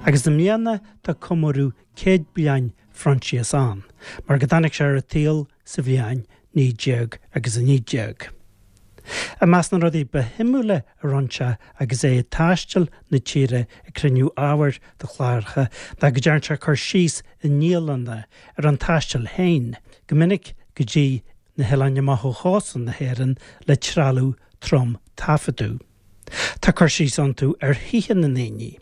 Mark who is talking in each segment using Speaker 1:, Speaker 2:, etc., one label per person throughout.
Speaker 1: Agus i mbliana tá comóradh 100 bliain Phroinsias ann, mar go dtáinig sé ar an tsaol sa bhliain 19 agus 19. I measc na rudaí ba shuimiúla a rinne sé agus é ag taisteal na tíre ag cruinniú ábhair do chláracha ná go dtearn sé cur síos i ndialanna ar an taisteal féin, go minic go dtí na hoileáin amach ó chósta na hÉireann le trealamh trom taifeadadh. Tá cur síos iontu ar thithe na ndaoine.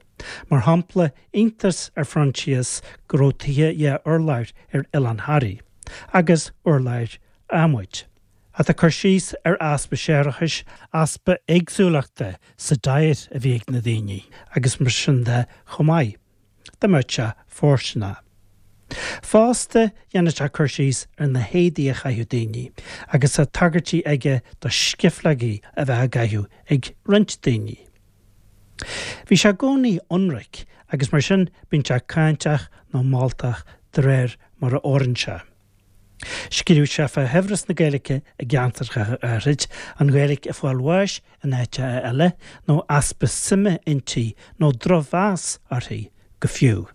Speaker 1: Mar shampla, iontas ar Phroinsias go raibh tithe dhá urlár ar Oileán Thoraí, agus urláir adhmaid. Ach tá cur síos ar easpa séarachais, easpa éagsúlachta sa diet a bhí ag na daoine agus mar sin de chomh maith. Dá mbeadh sé fóirsteanach. Fosta, dhéanann sé cur síos ar na héadaí a chaitheadh daoine agus tá tagairtí aige do scifleogaí a bheith á gcaitheamh ag roinnt daoine. Bhí sé i gcónaí ionraic agus mar sin bíonn sé cáinteach nó moltach de réir mar a oireann sé. Scríobh sé fá shaibhreas na Gaeilge i gceantracha áithrid, an Ghaeilge ag fáil bháis in áiteacha eile, nó easpa suime inti nó drochmheas uirthi go fiú.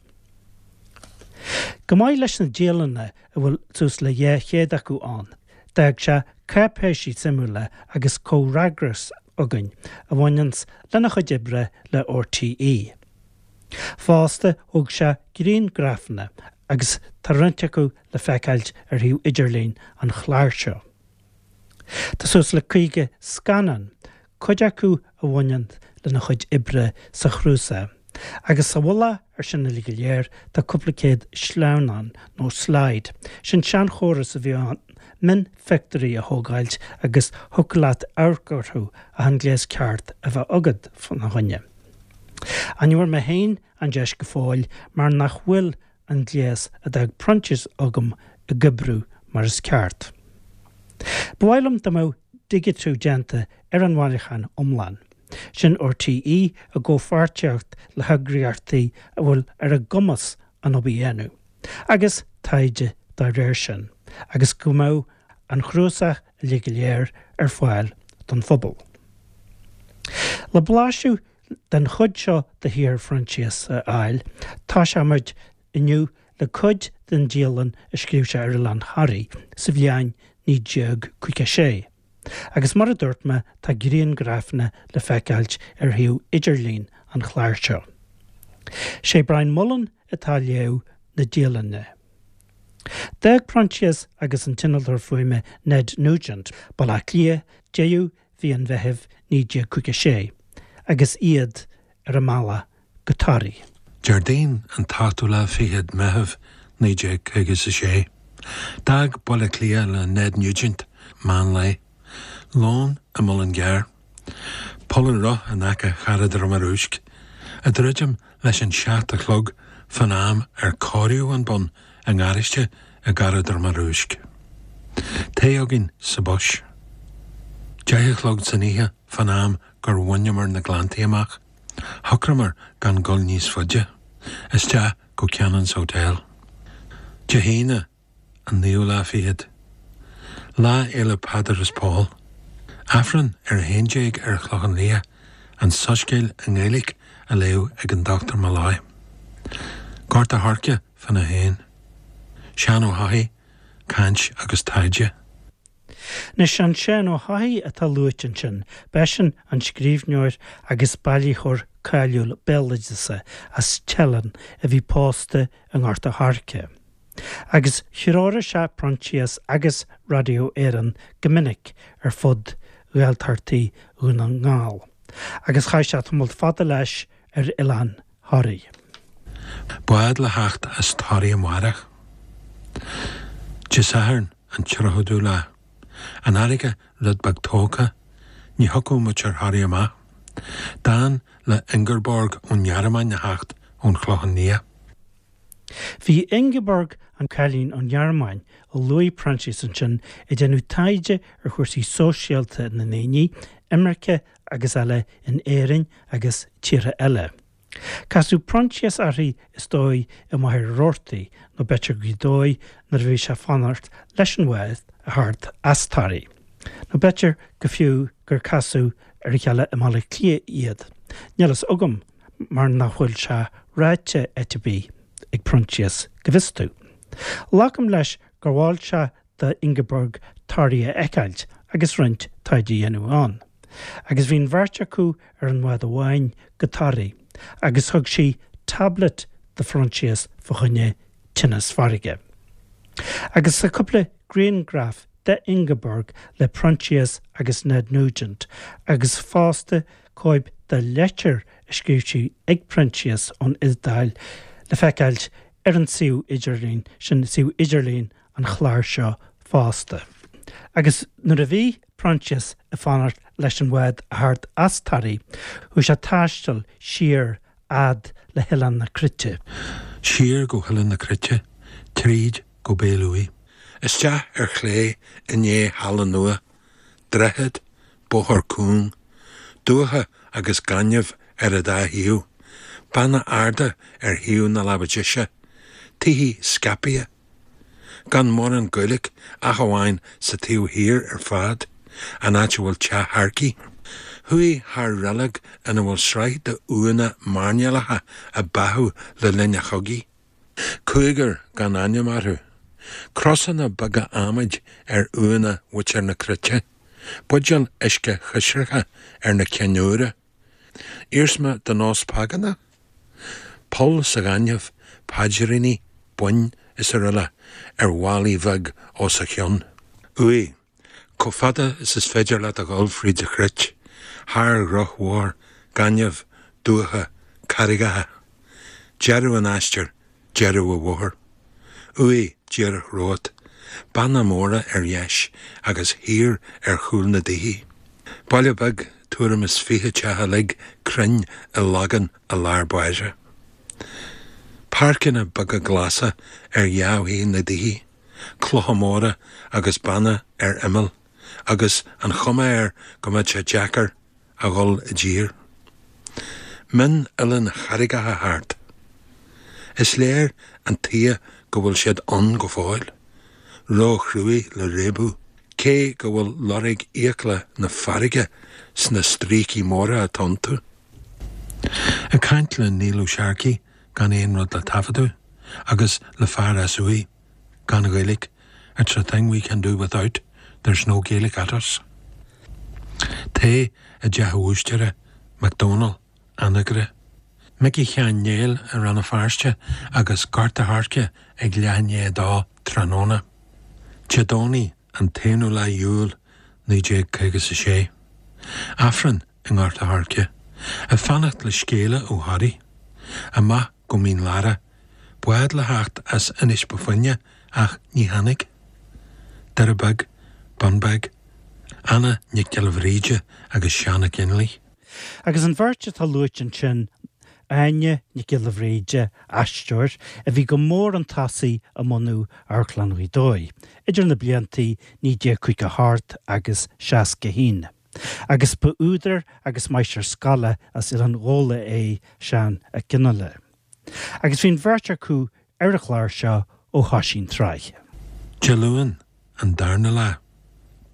Speaker 1: Chomh maith leis na dialanna, a bhfuil suas le 200 acu ann, d'fhág sé cáipéisí suimiúla agus comhfhreagras againn a bhaineanns lena chuid oibre le RTÉ. Fosta, thóg sé grianghrafanna agus tá roinnt acu le feiceáilt ar shuíomh idirlín an chláir seo. Tá suas le 50 scannán, cuid acu a bhaineann lena chuid oibre sa chnuasach, agus sa mhullach ar sin uilig go léir tá cúpla céad sleamhnán nó slide, sin seanchóras a bhí ann mionphictiúirí a thógáilt agus thiocfadh leat amharc orthu ach an gléas ceart a bheith agat fána choinne. Ach ní bhfuair mé féin an deis go fóill mar nach bhfuil an gléas a d'fhág Proinsias agam ag oibriú mar is ceart. Ba mhaith liom dá mbeadh digitiú déanta ar an bhailiúchán iomlán. Sin RTÉ i gcomhpháirtíocht le heagraíochtaí a bhfuil ar a gcumas an obair a dhéanamh, agus taighde dá réir sin, agus go mbeadh an chnuasach uilig go léir ar fáil don phobal. Le blaiseadh den chuid seo de shaothar Phroinsias a fháil, toiseoimid inniu le cuid den dialann a scríobh sé ar Oileán Thoraí sa bhliain 1956. Agus mar a dúirt mé, tá grianghrafanna le feiceáilt ar shuíomh idirlín an chláir seo. Sé Brian Mullen atá ag léamh na dialainne. D'fhág Proinsias agus an t-innealtóir fuaime Ned Nugent, Baile Átha Cliath, deireadh mhí an Mheithimh 1956 agus iad ar a mbealach go Toraigh.
Speaker 2: Déardaoin an t-ochtú lá fichead Meitheamh 1956. D'fhág Baile Átha Cliath le Ned Nugent meán lae. Lón i Mullingar. Poll an Roth in aice Charraig Droma Rúisc. Ag druidim leis an seacht a chlog fán am ar cóiríodh an bonn i ngaráiste i gCarraig Droma Rúisc. Tae againn sa bus. 10 a chlog san oíche fán am gur bhaineamar na Gleanntaí amach. Shocraíomar gan dul níos faide, isteach go Cannon's Hotel. Dé hAoine, an naoú lá fichead. Lá Fhéile Peadar is Pól. Aifreann ar a 11 ar an Chlochán Liath, an Soiscéal i nGaeilge á léamh ag an Dr Molloy. Gort a' Choirce fána haon. Seán Ó hEochaidh, caint agus taighde.
Speaker 1: Anois, an Seán Ó hEochaidh atá luaite ansin, b'eisean an scríbhneoir agus bailitheoir cáiliúil béaloideasa as Teileann a bhí pósta i nGort a' Choirce. Agus threoraigh sé Proinsias agus Radio Éireann go minic ar fud Ghaeltachtaí Dhún na nGall, agus chaith sé tamall fada leis ar oileán Thoraí.
Speaker 2: Bád le theacht as Toraigh amárach. Dé Sathairn an 30ú lá. An fharraige rud beag tógtha, ní thiocfadh muid ar Thoraigh amach. D'fhan le Ingeborg ón nGearmáin a theacht ón Chlochán Liath.
Speaker 1: Bhí Ingeborg, an cailín ón nGearmáin a luaigh Proinsias ansin, ag déanamh taighde ar chúrsaí sóisialta na ndaoine, imirce agus eile in Éirinn agus tíortha eile. Casadh Proinsias uirthi is dóigh i Machaire Rabhartaigh nó b'fhéidir Gaoth Dobhair nuair a bhí sé ag fanacht leis an bhád a theacht as Toraigh. Nó b'fhéidir go fiú gur casadh ar a chéile i mBaile Átha Cliath iad. Níl fhios agam mar nach bhfuil sé ráite áit ar bith ag Proinsias, go bhfios domh. Glacaim leis gur mhol sé do Ingeborg Toraigh a fheiceáilt agus roinnt taighde a dhéanamh ann. Agus bhí an bheirt acu ar an bhád amháin go Toraigh agus thug sí tablet do Phroinsias fá choinne tinneas farraige. Agus tá cúpla grianghraf de Ingeborg le Proinsias agus Ned Nugent agus fosta cóip de leitir a scríobh sí ag Proinsias ón Iodáil le feiceáilt ar an suíomh idirlín, sin suíomh idirlín an chláir seo fosta. Agus nuair a bhí Proinsias ag fanacht leis an bhád a theacht as Toraigh, chuaigh sé ag taisteal siar fhad le hOileán na Cruite.
Speaker 2: Siar go hOileán na Cruite, tríd go Béal Uaighe. Isteach ar chlé i ndiaidh Halla Nua, droichead, bóthar cúng, dumhcha agus gaineamh ar an dá thaobh, beanna arda ar thaobh na láimhe deise, tithe scaipthe, gan mórán Gaeilge ach amháin sa taobh thiar ar fad, an áit a bhfuil teach Tharcaí. Chuaigh thar reilig ina bhfuil sraith de uaigheanna mairnéalacha a báthadh le linn an chogaidh. Cúigear gan ainm orthu. Crosanna beaga adhmaid ar uaigheanna mhuintir na Cruite. Buidéil uisce choisricthe ar na cinn úra. Iarsma de nós págánach? Poll sa ghaineamh, paidríní, boinn is araile ar mhálaí bheag os a chionn. Uaigh, chomh fada is is féidir leat a dhul fríd an chruit, thar dhrochbhóthar, gaineamh, dumhcha, carraigeacha. Deireadh an aistir, deireadh an bhóthair. Uaigh díreach romhat, beanna móra ar dheis agus thiar ar chúl na dtithe. Baile beag, tuairim is 20 teach uilig cruinn i lagán i lár báire. Páirceanna beaga glasa ar dhá thaobh na dtithe, clocha móra agus beanna ar imeall agus an chuma air go mbeadh sé deacair a dhul i dtír. Mion-oileáin charraigeacha thart. Is léir an tuige go bhfuil siad ann go fóill, ró-chruaidh le réabadh, cé go bhfuil lorg fhiacla na farraige sna stríocaí móra atá iontu. Ag caint le Neil Ó Searcaigh gan aon rud le taifeadadh, agus le fear as Uaigh. Gan Ghaeilge, it's a thing we can do without, there's no Gaelic at us. Tae i dteach an bhúistéara, McDonald, Anagaire. Micí Sheáin Néill i Rann na Feirste agus Gort a' Choirce ag leath i ndiaidh a dó tráthnóna. Dé Domhnaigh an t-aonú lá Iúil 1956. Aifreann i nGort a' Choirce. Ag fanacht le scéala ó Thoraigh. Amach go Mín Lárach, bád le theacht as Inis Bó Finne ach ní tháinig. Doire Beag, Bunbeg, Anna Nic Giolla Bhríde agus Seán Ó Conghaile.
Speaker 1: Agus an bheirt atá luaite ansin, Áine Nic Giolla Bhríde, aisteoir, a bhí go mór chun tosaigh i mbunú Amharclann Ghaoth Dobhair idir na blianta 1958 agus 61. Agus ba údar agus máistir scoile as Oileán Ghabhla é Seán Ó Conghaile. Agus bhí an bheirt acu ar an chlár seo ó thoisigh an tsraith.
Speaker 2: Dé Luain, an darna lá.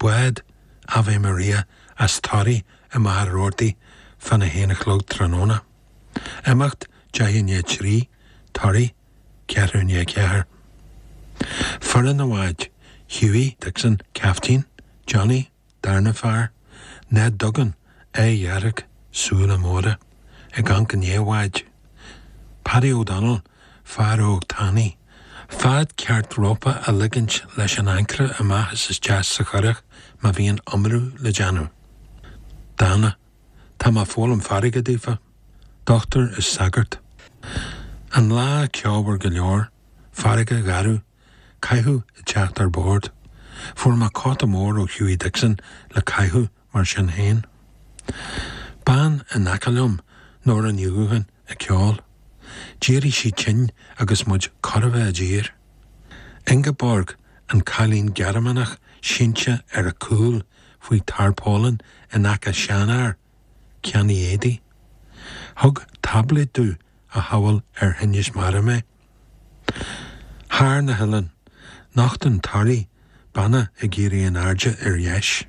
Speaker 2: Bád Ave Maria as Toraigh i Machaire Rabhartaigh fána haon a chlog tráthnóna. Imeacht 3:10 i ndiaidh 3, Toraigh, 3:45. Foireann an bháid, Hughie Dixon, Caiftín, Johnny, Darna fear, Ned Duggan, aghaidh dhearg, súile móra, ag amharc i ndiaidh an bháid. Paddy O'Donnell, fear óg tanaí. Fad ceart rópa a ligint leis an ancaire amach is isteach sa churach má bhíonn iomrú le déanamh. Dána. Tá mé ag foghlaim farraige daofa. Dochtúir is sagart. An lá ceomhar go leor, farraige gharbh, Caitheamh ag teacht ar bord. Fuair mé cóta mór ó Hughie Dixon le caitheamh mar sin féin. Bean in aice liom, Nóra Ní Dhubhcháin, ag ceol. D'éirigh sí tinn agus muid chóir a bheith i dtír. Ingeborg, an cailín Gearmánach sínte ar a cúl faoi tarpaulin in aice seanfhear, ceannaí éadaí. Thug táibléad domh a shamhail ar thinneas mara mé. Thar na hoileáin, nochtann Toraigh beanna ag éirí in airde ar dheis.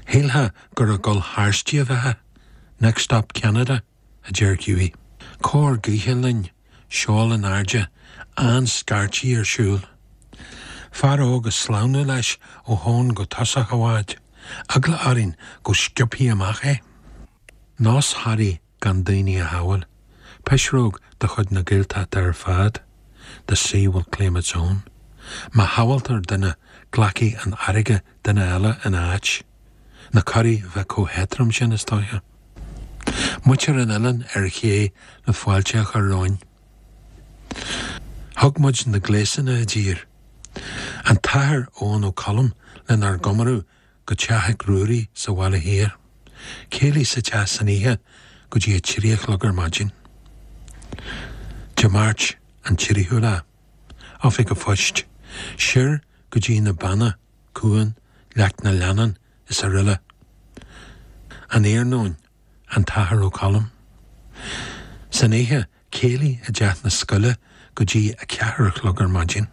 Speaker 2: Shílfeá gur ag dul thairsti a bheifeá. Next stop Canada, a deir Hughie. Cóir gaoithe linn. seol in airde, an-scairtigh ar siúl. Fear óg ag sleamhnú leis ó thóin go tosach a' bháid, eagla orainn go sciobfaí amach é. Nós Thoraí gan daoine a shábháil, pisreog de chuid na Gaeltachta ar fad, the sea will claim its own. Má shábháltar duine glacfaidh an fharraige duine eile ina áit. Na curaí bheith chomh héadrom sin, is dóiche. Muintir an oileáin ar ché le fáilte a chur romhainn. Thug muid na gléasanna i dtír. An tAthair Eoghan Ó Colm lenár gcomóradh go Teach Mhic Ruairí sa Bhaile Thiar. Céilí sa teach san oíche go dtí a 3 a chlog ar maidin. Dé Máirt an 3ú lá. Oifig a' Phoist. Siar go dtí na Beanna, Cuan, Leac na Leannán is aroile. An iarnóin, an tAthair Ó Colm. San oíche, céilí i dteach na scoile go dtí a ceathair a chlog ar maidin.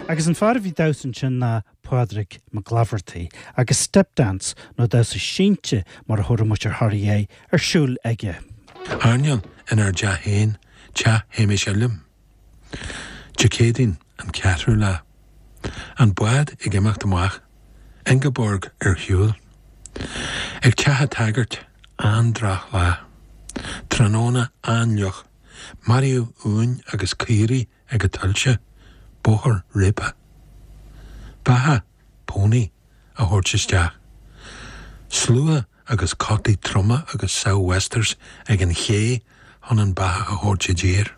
Speaker 1: Agus an fear a bhí ag damhsa ansin ná Pádraig Mac Laifeartaigh, agus step dance, nó damhsa sínte mar a thabharfadh muintir Thoraí é, ar siúl aige.
Speaker 2: Airneál inár dteach féin, teach Shéamais Uilliam. Dé Céadaoin, an ceathrú lá. An bád ag imeacht amach. Ingeborg ar shiúl. Ag teach a' tsagairt, an-droch-lá. Tráthnóna an-fhliuch. Maraíodh uain agus caoirigh ag a' tuilte, bóthar réabtha. Beathach, pony, a thabhairt isteach. Slua agus cotaí troma agus sou'westers ag an ché chun an beathach a thabhairt i dtír.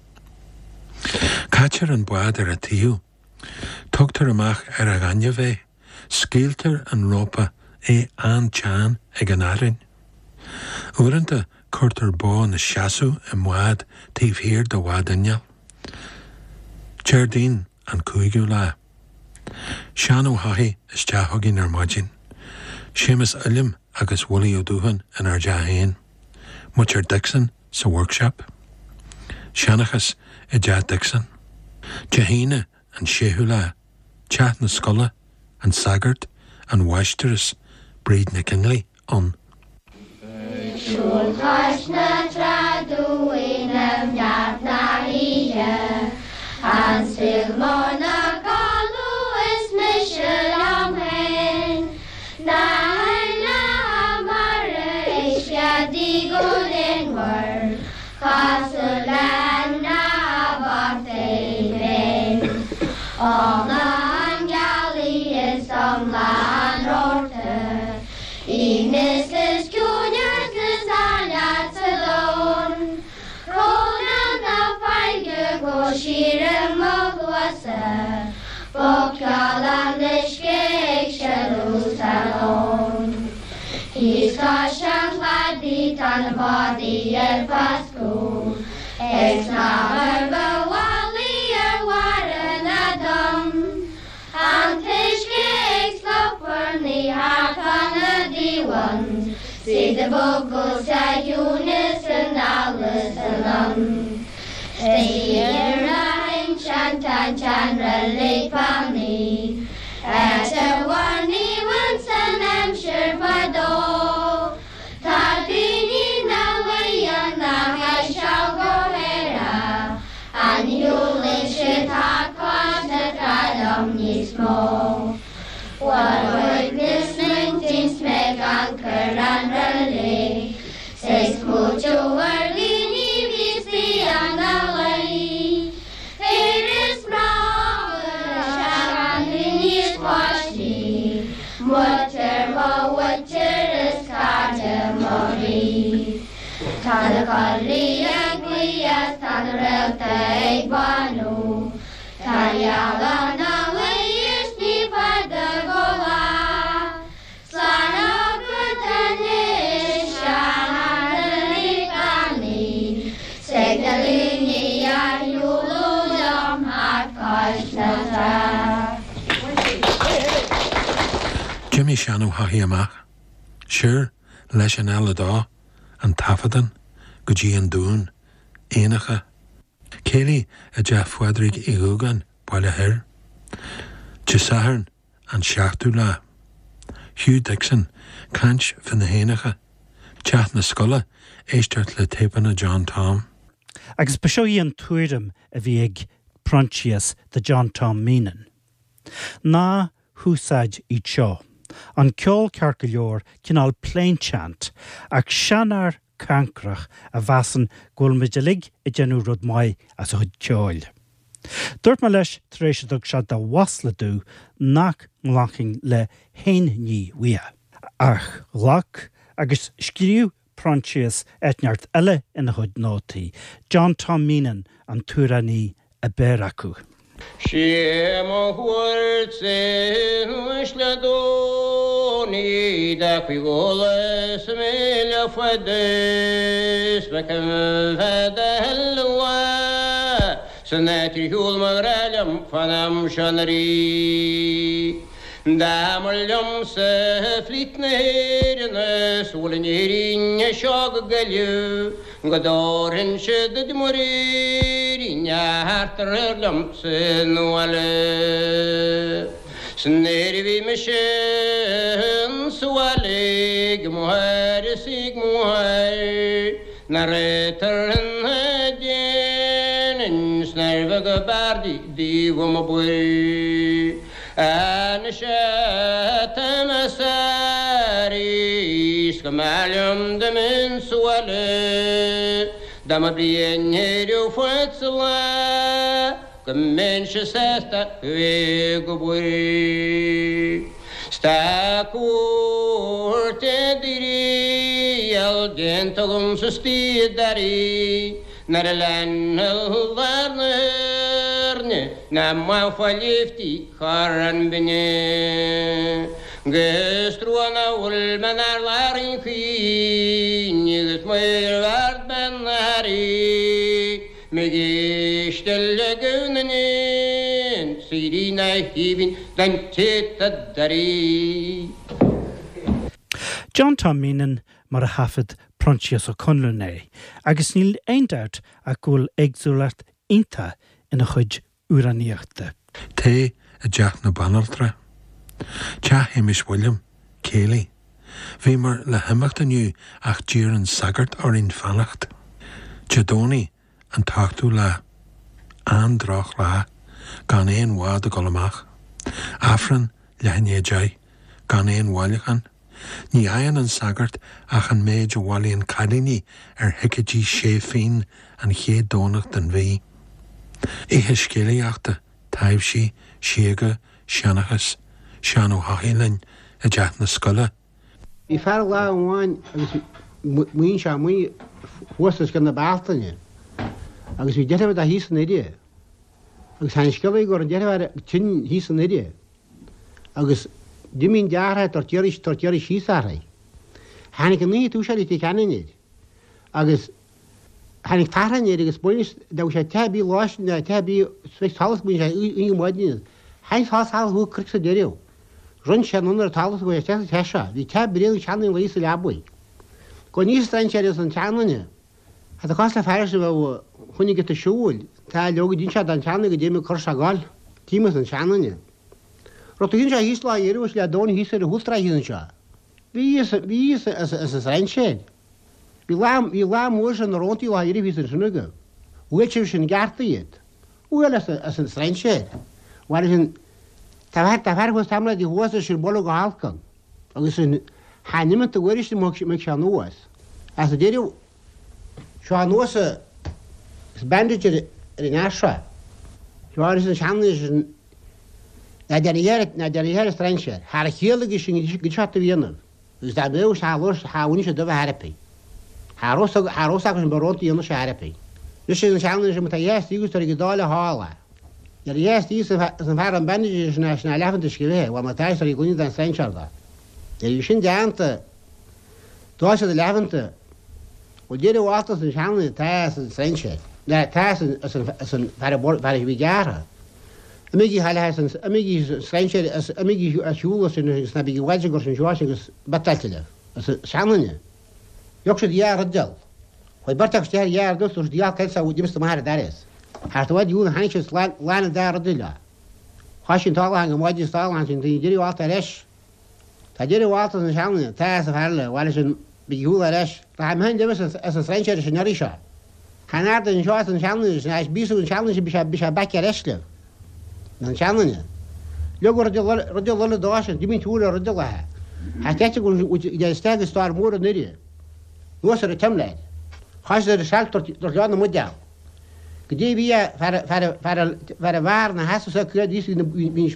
Speaker 2: Caitear an bád ar a taobh. Tugtar amach ar a ghaineamh é. Scaoiltear an rópa, é an-teann ag an fhearthainn. Uaireanta cuirtear bó 'na seasamh i mbád taobh thiar de bhád innill. Déardaoin an cúigiú lá. Seán Ó hEochaidh isteach chugainn ar maidin. Séamus Uilliam agus Willie Ó Dúcháin inár dteach féin. Muintir Dixon sa workshop. Seanchas i dteach Dixon. Dé hAoine an séú lá. Teach na scoile, an sagart, an mháistreás, Bríd Nic Fhionnghaile, ann.
Speaker 3: Ag siúl cois na trá dúinn i neart na hoíche, An saol mór 'na codladh is mise liom féin, Na hainmhithe mara ag screadaigh go léanmhar, Cosúil le hainmhithe bochta iad féin. Iomlá an ghealaí is iomlá an rabharta, Aoibhneas is ciúineas is áilleacht sa domhan, Crónán na farraige go síor i mo chluasa, Bogcheol an uisce ag sileadh sa lón. Thíos cois an chladaigh tá na bádaí ar foscadh, Ag snámh ar bhealaí ar bharra na dtonn, An t-uisce ag sloparnaigh thart fá na dtaobhann, 'S iad ag bogadh sa chiúineas anall is anonn. Istigh ar na hinsean tá an tseanreilig fánaí, Áit a mhair naomh ins an aimsir fadó. Tá daoine na. Tá na coiligh ag glaoch 's tá na réalta ag bánú. Tá an ghealach 'na luí is ní fada go lá. Slán agat anois a Sheáin Uí 's ag na daoine a shiúladh liom thart cois na trá.
Speaker 2: D'imigh Seán Ó hEochaidh amach. Siar leis an L2, an taifeadán, go dtí an Dún, éanacha. Céilí i dteach Phádraig Uí Dhúgáin, Baile Thoir. Dé Sathairn, an seachtú lá. Hugh Dixon, caint fé na héanacha. Teach na Scoile, éisteacht le téipeanna John Tom.
Speaker 1: Agus ba seo í an tuairim a bhí ag Proinsias de John Tom Meenan. Ná húsáid iad seo. An ceol ceart go leor, cineál plainchant, ach seanfhear cancrach a mheasann go bhfuil muid uilig ag déanamh rud maith as a chuid ceoil. Dúirt mé leis tar éis a dtug sé de mhasla domh nach nglacfainn le haon ní uaidh. Ach ghlac, agus scríobh Proinsias áit inteacht eile ina chuid nótaí, John Tom Meenan an t-amhránaí a b'fhearr acu.
Speaker 4: Sé mo chuairt-sa anois le Dónaí da cuig is míle fada 's mo choimhead a thuilleadh san áit ar shiúl mo ghrá liom fán am seo anuraidh. Dá mba liomsa flít na hÉireann 's bhfuil in Éirinn seo go Gaillimh go dtabharfainnse duit muirín thart aréir liomsa 'na bhaile. 'S nuair a bhí mise insa bhaile ag mo athair is ag mo mháthair nach raibh tar ina déanainn 's nár bheag ab fhearr di dtaobh an obair. Anois atá mé sáraithe 's go mb'fhearr liom dá mbeinn sa bhaile dá mba bliain ar fad sa lá go mbeinnse sásta bheith ag obair. 'S tá cuairt i dtriail déanta agamsa istigh i dToraigh Nuair a lean lár na hÉirne ná maith lifti chor an binne. 'Gus trua ná bhfuil mé 'nár lár an chaoin agus maor ard bean na hairí M'ag éisteacht le guth na n-éan 's éirí na haoibhinn don té tá dáiríre.
Speaker 1: John Tom Meenan mar a thaifead Proinsias Ó Conluain é, agus níl aon dabht ach go bhfuil éagsúlacht iontach ina chuid amhránaíochta.
Speaker 2: Tae i dteach na banaltra. Teach Shéamais William, céilí. Bhíomar le himeacht inniu ach d'iarr an sagart orainn fanacht. Dé Domhnaigh an t-ochtú lá. An-droch lá. Gan aon bhád ag dul amach. Aifreann leath i ndiaidh 10. Gan aon bhailiúchán. Ní fhaigheann an sagart ach an méid a bhailíonn cailíní ar thicéidí sé phínn an chéad Domhnach den mhí. Oíche scéalaíochta, taibhsí, síoga, seanchas, Seán Ó hEochaidh linn i dteach na scoile.
Speaker 5: Bhí fear lá amháin agus maoin sé amuigh thuas os cionn na Bealtaine agus bhí deirfiúr dó thíos i nDoire agus tháinig scéala go raibh an deirfiúr tinn thíos i nDoire. Agus d'imigh an deartháir tabhairt iarraidh tabhairt iarraidh síos uirthi. Tháinig an oíche túis ar Leitir Ceanainn air agus tháinig tachráin air agus baineadh dá bhfuil sé teach ar bith lá sin teach ar bith sroich solas baineadh sé oíche maidin Tháinig solas solas thuaidh cnoic sa deireadh. Rinn sé anonn ar an talamh go raibh sé sa teach seo. Bhí teach bréan ag seanduine luí sa leabaidh. Go níos strainséir as an tseanduine. Tá cás le fear a bheadh chun giota siúil, tá leoga d'inis sé don tseanduine go dtéim ag cur sé ag gol, tím as an seanduine. Rud a shín sé thíos lá iarraidh le domhan thíos ar an chúlsráid thíos anseo. Bhí fhios bhí fhios as as an strainséir. Bhí lá bhí lá mór sin na róntaí lá iarraidh thíos ansin aige. Bhuail sé sin gceart iad. Bhuail as as an strainséir. Bhuail sin tá fear tá fear thuas tamall de thuas is sin bualadh go holc ann. Agus sin tha n-imeacht a uair sin mbeidh sé anuas. As a deireadh Seo anuas is bandage ar an fhear seo. Seo arís an seanduine sin ná deartháir ná deartháir strainséir. Thar a chiall aige sin go dtí seo a dhéanamh. Agus dá mbeadh sé labhairt tha bhain sé dubh a thairpe. Cha raibh fhios acu sin barrónta a dhéanamh sé airpí. Anois an seanduine sin má tá dheas díocas tar ag an dáil a shála. Nuair a dheas díocas is an fear an bandages sin é sin a leath an uisce bhithe, bhuel má tá tar ag gloine den strainséir dó. Nuair a bhí sin déanta, d'fhág siad a leathmhanta. Bhuel deireadh mhalta is an seanduine tá is an strainséir. Ná tá is an fear a bhí gearrtha. Imígí thall as an, imígí an strainséir as, imígí ar shiúl as sin agus ná bígí i bhfad sin gur sin seo agus biotáilte libh. As an seanduine. Thug siad dhá rud dul. Chuaigh beirt acu isteach ar dhá rud dul, dúirt siad dhá cén saghas d'imigh amach ar an dturas. Thart i bhfad dhiúl tháinig siad slán lán an dá rud leo. Chaith sí an t-alán go maidin is t-alán sin daoine deireadh alt ar ais. Tá deireadh alt as an seanduine, tá as an fear eile, bhaile sin bígí shúil ar ais. Rachaidh mé féin libh as an strainséir sin iarraidh seo. Chan ard anseo as an seanduine sin ais bíos an seanduine sin bhí sé bhí sé back ar ais libh. An seanduine. Leog rud rud eile dó sin, d'imigh an t-úr ar rud eile. Thá ceist go bhfuil isteach i stár mór an Oirthir. Anuas ar an tseimléir. Chaith siad ar an seilf dúirt leo na mbuidéal. Go dtí bhí fear fear fear fear a bheár na heasa sa críoch bhí bhí an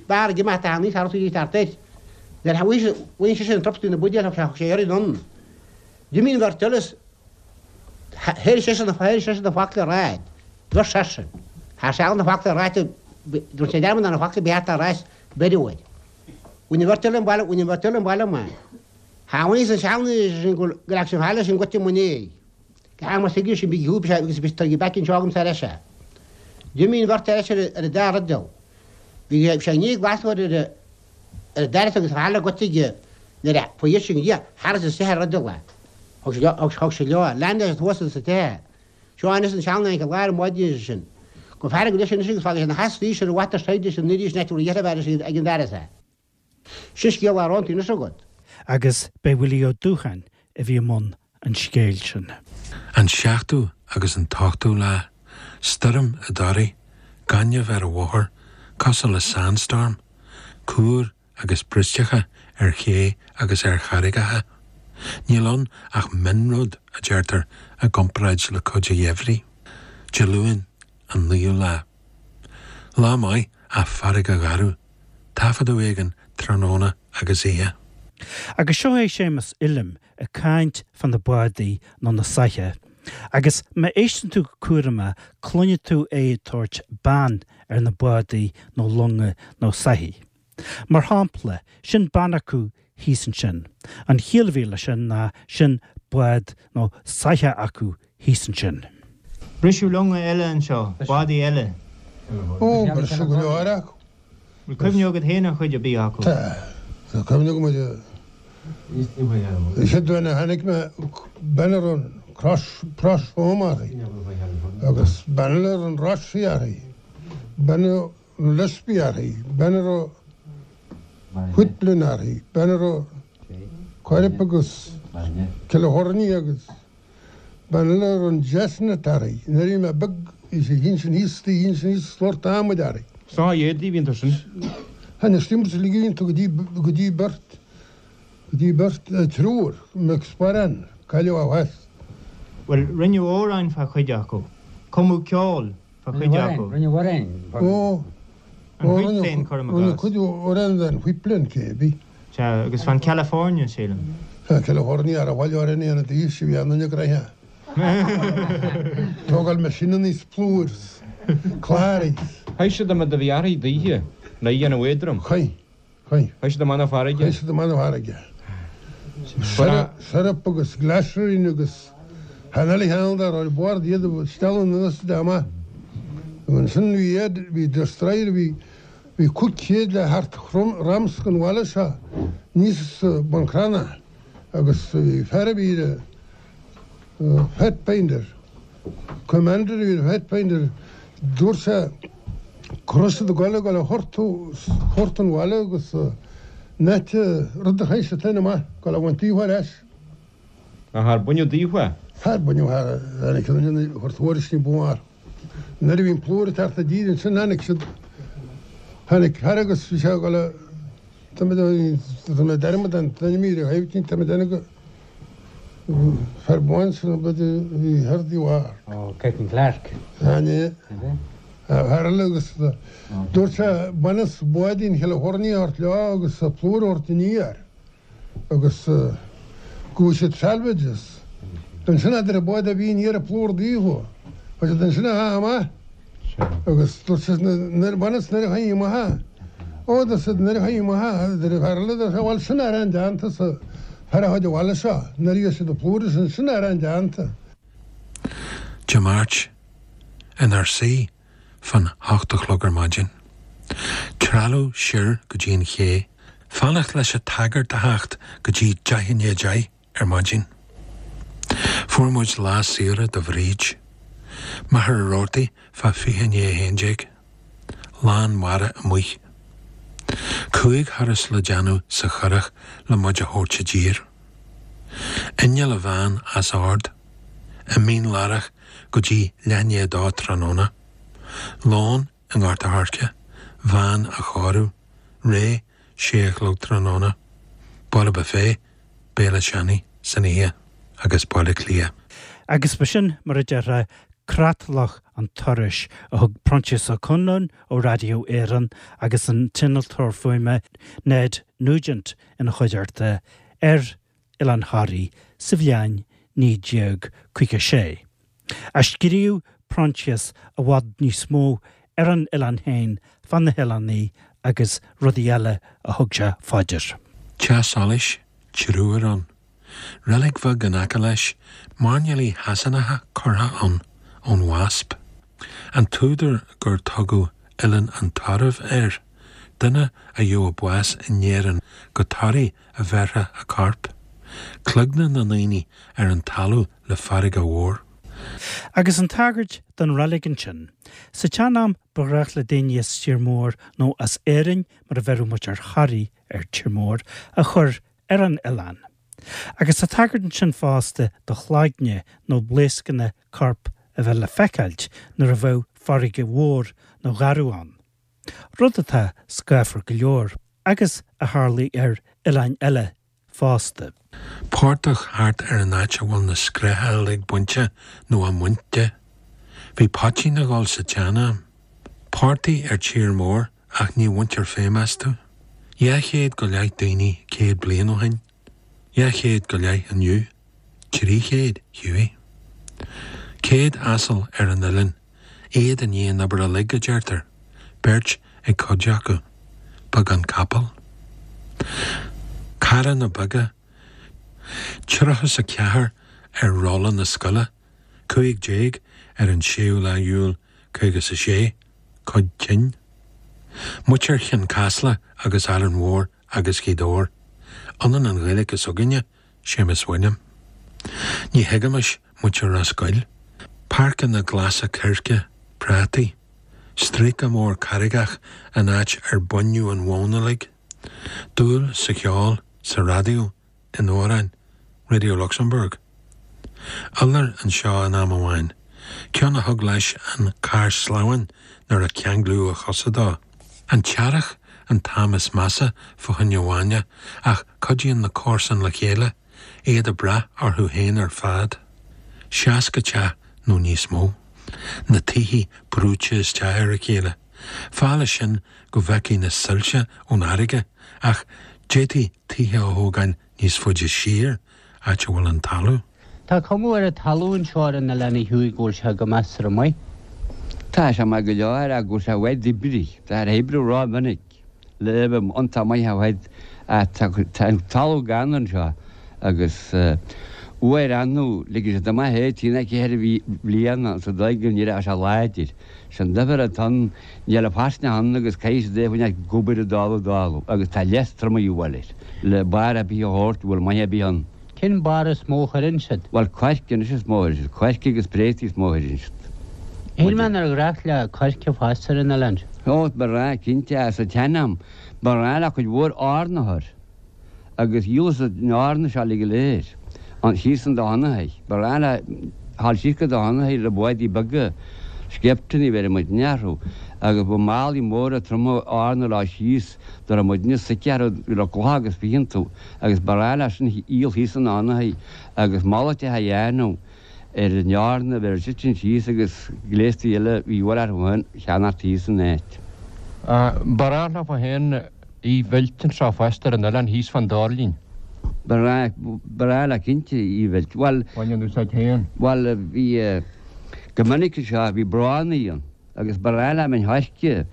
Speaker 5: beár ag imeacht a níos thart í thart air. Nuair a bhain sé sin an trup de na buidéil thug sé thug sé iarraidh anonn. D'imigh an bheirt eile is Thair seisean thair seisean na focla ráit. Dúirt seisean. Thar seal na focla ráite dúirt sé dearmad ar na focla bhí thart ar ais beirt uair. Bhain an bheirt eile an baile bhain an bheirt eile an baile amach. Tháinig an seanduine sin go go raibh sin fáil sin goite mo néidh. Go ham as thuige sin bhí shúb sé agus bhí tar back anseo agam ar ais é. D'imigh an bheirt ar ais ar ar an dara rud Bhí sé i ndiaidh glasóir ar a ar an dara agus tharla goite aige nuair a fuair sin dhia thar is isteach ar rud eile. Thug sé leo, thug sé leo, lean leis thuas sa tithe. Seo anois an seanduine i lár an mhaidin sin. Go fearg leis anois agus fágfaidh sé na heasraí ar mhaith taighde sin arís an áit a bhfuil a dheirfiúr ag an bhfear é. Sin scéal aránta anois agat.
Speaker 1: Agus b'é Willie Ó Dúcháin a bhí i mbun an scéil sin.
Speaker 2: An seachtú agus an t-ochtú lá, stoirm i dToraigh, gaineamh ar an bhóthar, cosúil le sandstorm, cúir agus bristeacha ar ché agus ar charraigeacha. Níl ann ach mionrud, a deirtear, i gcomparáid le cuid an gheimhridh. Dé Luain, an naoú lá. Lá maith ach farraige gharbh. Taifeadadh éigin tráthnóna agus oíche.
Speaker 1: Agus seo é Séamus Uilliam ag caint fá na bádaí nó na soithí. Agus má éisteann tú go cúramach cluinfidh tú é ag tabhairt bean ar na bádaí nó longa nó soithí. Mar shampla, sin bean acu thíos ansin. An chiall a bhí leis sin ná sin bád nó soitheach acu thíos ansin.
Speaker 6: Briseadh longa eile anseo, bádaí eile.
Speaker 7: Ó, briseadh go leor acu.
Speaker 6: Bhfuil cuimhne agat féin ar chuid ar bith acu?
Speaker 7: Tá. Tá cuimhne agam ar an chéad duine a chonaic mé, bean a raibh an crois, Crois Home uirthi agus bean eile a raibh an Rothesay uirthi, bean a raibh an Lispe uirthi, bean a raibh Whitland uirthi, bean a raibh Corrib agus California agus Bean eile a raibh an Chestnut uirthi. Nuair a bhí mé beag bhí sé thíos sin thíos istigh thíos sin thíos slort adhmaid uirthi.
Speaker 8: Sna éadaí a bhí iontu sin.
Speaker 7: Tháinig steamers uilig a bhí iontu go dtí go dtí beirt go dtí beirt triúr McSparran cailleadh ó theas.
Speaker 6: Bhuel, rinneadh amhráin fá chuid acu. Cumadh ceol fá chuid acu.
Speaker 9: Rinneadh amhráin.
Speaker 7: Ó,
Speaker 6: An Whitland, cuirim i
Speaker 7: rinneadh cuid amhrán den Whitland cébí.
Speaker 6: Sea, agus fan California, sílim.
Speaker 7: Fan California ar a bhaile orainn é an taois a bhí ann ina gcroidhe. Tógáil mé sin aníos plúr 's cláraí 's.
Speaker 8: Chaith siad an rud a bhí uirthi daoithe le dhéanamh éadrom.
Speaker 7: Chaith. Chaith.
Speaker 8: Chaith siad amach na farraige.
Speaker 7: Chaith siad amach na farraige. Syrup agus glycerine agus chan eile cheann dá raibh ar bord iad a stealladh anuas de amach. Ansin bhí iad, bhí destroyer, bhí, bhí 500 le thart ramsc an bhaile seo níos Bun Cranncha agus bhí fear a bhí ar Pathfinder, Commander a bhí ar Pathfinder, dúirt sé go raibh siad ag goil ag goil a thortú thort an bhaile agus net rud a chaith siad féin amach, goil a bhaint daofa ar ais.
Speaker 8: Ach ar baineadh daofa?
Speaker 7: Ar baineadh thar tháinig siad ansin a chur tuairisc ní ba mhó orthu. Nuair a bhí an plúr ag teacht i dtír ansin tháinig siad, tháinig fear agus bhí sé ag goil a, tá mé tá mé dearmad an t-ainm ar a thaobh tá mé déanamh go Fear bán sin a bhí thar the war.
Speaker 9: Ó, Captain Clarke.
Speaker 7: Tháinig fear eile agus dúirt sé baineas báidín Chalifornia a thabhairt leo agus plúr a thabhairt aniar agus go bhfuil siad salvages. Ansin a deir bád a bhí aniar ag plúr daofa. Chuir siad ansin a dhath amach agus dúirt siad nuair bhaineas nuair a chuaigh amach é. Ó dúirt siad nuair a chuaigh amach é a deir an fear eile dúirt sé bhuel sin arán déanta sa fear a chuid abhaile seo nuair a bhí siad ag plúr sin sin arán déanta.
Speaker 2: Dé Máirt, inár suí fán hocht a chlog ar maidin. Trealamh siar go dtí an ché. Fanacht leis an tsagart a theacht go dtí 9:10 i ndiaidh 10 ar maidin. Fuair muid lá saoire do Bhríd. Machaire Rabhartaigh fá 11:40. Lán mara amuigh. Chúig thuras le déanamh sa churach le muid a thabhairt i dtír. Inneall a bhean as ord. I Mín Lárach go dtí leath i ndiaidh a dó tráthnóna. Lón i nGort a' Choirce, veain á chóiriú, réidh sé a chlog tráthnóna. Baile Buffet, béile seanaidh san oíche agus Baile Átha Cliath.
Speaker 1: Agus b'shin, mar a déarfá, creatlach an turais a thug Proinsias Ó Conluain ó Radio Éireann agus an t-innealtóir fuaime Ned Nugent ina chuideachta ar Oileán Thoraí sa bhliain 1956. Ach scríobh Proinsias i bhfad níos mó ar an oileán féin, fá na hoileánaigh agus rudaí eile a thug sé fá dear.
Speaker 2: Teach solais, triúr ann. Reilig bheag in aice leis, mairnéalaigh Shasanacha curtha ann ón Wasp. An t-údar gur tugadh Oileán an Tairbh air, duine a gheobhadh bás in Éirinn go Toraigh a bheirfeá a corp. Cloigne na ndaoine ar an talamh le farraige mhór.
Speaker 1: Agus an tagairt don reilig ansin. Sa tsean-am ba ghnách le daoine as Tír Mór nó as Éirinn, mar a bheireadh muid ar Thoraigh ar Tír Mór, a chur ar an oileán. Agus tá tagairt ansin fosta do chloigne nó blaoscanna coirp a bheith le feiceáilt nuair a bheadh farraige mhór nó gharbh ann. Rud atá scáfar go leor, agus a tharlaigh ar oileáin eile fosta.
Speaker 2: Portach thart ar an áit a bhfuil na scréacha uilig bainte nó á mbaint de. Bhí poitín ag dul sa tsean-am. Portaigh ar tír mór ach ní bhaintear feidhm astu. 200 go leith daoine 100 bliain ó shin. 200 go leith inniu. 300, Hughie. 100 asal ar an oileán, iad i ndiaidh an obair uilig, a deirtear, beirt ag cuid acu. Beagán capall. Carranna beaga. 34 ar rolla na scoile, 15 ar an séú lá Iúil 56, cuid tinn. Muintir Chionn Caslach agus Árainn Mhór agus Ghaoth Dobhair. Ionann an Ghaeilge s'againne Séamus William. Ní thuigimis muintir Ros Goill. Páirceanna glasa coirce, prátaí. Stríoca mór carraigeach an áit ar baineadh an mhóin uilig. Dúil sa cheol, sa raidió, in amhráin, Radio Luxembourg. Iolar anseo in am amháin, ceann a thug leis an carr sleamhain nuair a ceanglaíodh a chosa dó. An t-earrach an t-am is measa fá choinne bhainne ach cuidíonn na comharsain le chéile, iad ag brath orthu féin ar fad. 60 teach nó níos mó. Na tithe brúite isteach ar a chéile. Fáth leis sin go bhfeicfí na soilse ón fharraige ach d'fhéadfaí tithe a thógáil níos faide siar, áit a bhfuil an talamh.
Speaker 9: Tá cuma ar an talamh anseo ar an oileán a Hughie go bhfuil sé go measartha maith.
Speaker 10: Tá sé maith go leor ach go bhfuil sé i bhfad oibrith. Tá ar oibriú ró-mhinic le bheith iontach maith i bhfad ach tá an talamh gann anseo agus uair annamh ligeann siad amach é trí nó ceithre bhliana sa dóigh go n-éireoidh sé láidir. Sin duifear atá ann, níl a faisnéis ann agus caithfidh siad é a choinneáil ag obair ag dul ag dul agus tá leas trom a dhíobháil air le barr ar bith a thabhairt, bhfuil maith ar bith ann.
Speaker 9: Cén barr is mó a chuireann siad?
Speaker 10: Bhuel, coirce anois is mó a chuireann siad, coirce agus préataí is mó a chuireann siad.
Speaker 9: Shíl mé nár ghnách le coirce fás ar an oileán seo.
Speaker 10: Ó, ba ghnách, cinnte, sa tsean-am, ba ghnách le cuid mhór eorna a chur. Agus dhíoladh siad an eorna seo uilig go léir, an, síos an Domhnathaigh. Ba ghnách le dhul síos go Domhnathaigh le bádaí beaga, scaipteannaí a bheireadh muidne orthu, agus bhí málaí móra troma eorna leo síos, dá raibh muidne suite orthu, bhí le clocha agus fiche iontu, agus ba ghnách leis sin a dhíol thíos an Domhnathaigh, agus malairt a dhéanamh ar an eorna a bheith ag titim síos agus gléastaí eile a bhí a dhíobháil orthu féin a cheannacht thíos san áit.
Speaker 8: Ba ghnách leofa féin í mheilt anseo fosta ar an oileán thíos fán Doirlinn.
Speaker 10: Ba ghnách leo cinnte í a mheilt. Bhuel.
Speaker 8: Bhain an úsáid féin.
Speaker 10: Bhuel, bhí, go minic anseo, bhí bránnaí ann agus ba ghnách leo min choirce a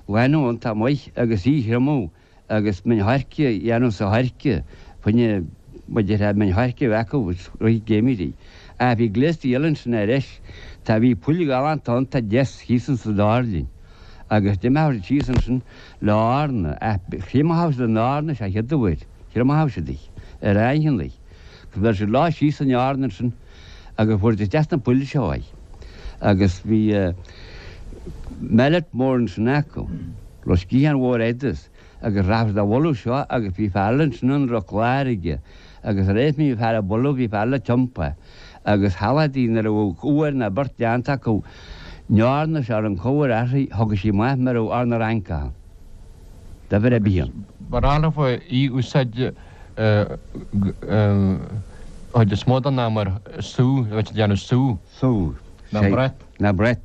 Speaker 10: ghlanadh iontach maith agus í a thriomú agus min choirce a dhéanamh sa choirce, fá choinne, mar déarfá, min choirce a bheith acu i rith geimhridh. Ach bhí gléastaí eile ansin aris. Tá, bhí poill ghalánta iontach deas thíos insa doirlinn agus d'imeodh siad síos ansin le eorna, ach thriomaíodh siad an eorna sa chéad uair, thriomaíodh siad í, ar aingheannaí, agus bheir siad leo síos an eorna ansin agus fuair siad isteach sna poill seo í. Agus bhí mallet mór ansin acu, raibh sciathán mhór fhada agus rachadh siad á bhualadh seo agus bhí fear eile ansin ann a raibh clár aige agus tar éis a mbíodh fear ag bualadh bhí fear eile ag tiompú agus shamhlódh nuair a bheadh uair ná beirt déanta acu an eorna seo ar an chabhair uirthi thiocfadh sí amach mar a bheadh eorna Fhrancach ann. Duibhir ar bith ann.
Speaker 8: Ba ghnách leofa í úsáid chuid is mó den am mar sú, a bheith ag déanamh sú.
Speaker 10: Sú.
Speaker 8: Ná brat.
Speaker 10: Ná brat.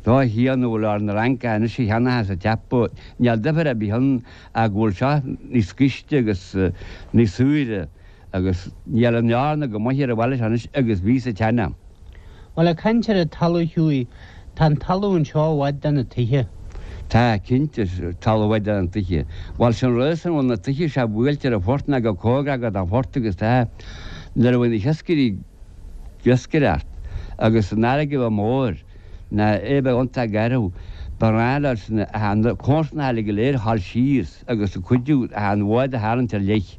Speaker 10: Dá shia nó bhfuil eorna Fhrancach anois a cheannaitheas a ceapadh, níl duifear ar bith ann ach go bhfuil seo níos gaiste agus níos saoire agus níl an eorna chomh maith ar an bhaile seo anois agus bhí sa tsean-am.
Speaker 9: Bhuel, ag caint ar an talamh Hughie, tá an talamh anseo i bhfad de na tithe.
Speaker 10: Tá, cinnte, talamh i bhfad de na tithe. Bhuel, sin rud san bhfuil na tithe seo buailte ar an phort ná go cóngarach don phort agus tá, nuair a bhí na hiascairí, ag iascaireacht agus an fharraige a bheith mór ná é bheith iontach garbh, ba ghnách leo sin na comharsanacha uilig go léir a dhul síos agus ag cuidiú an bhád a tharraingt ar leith.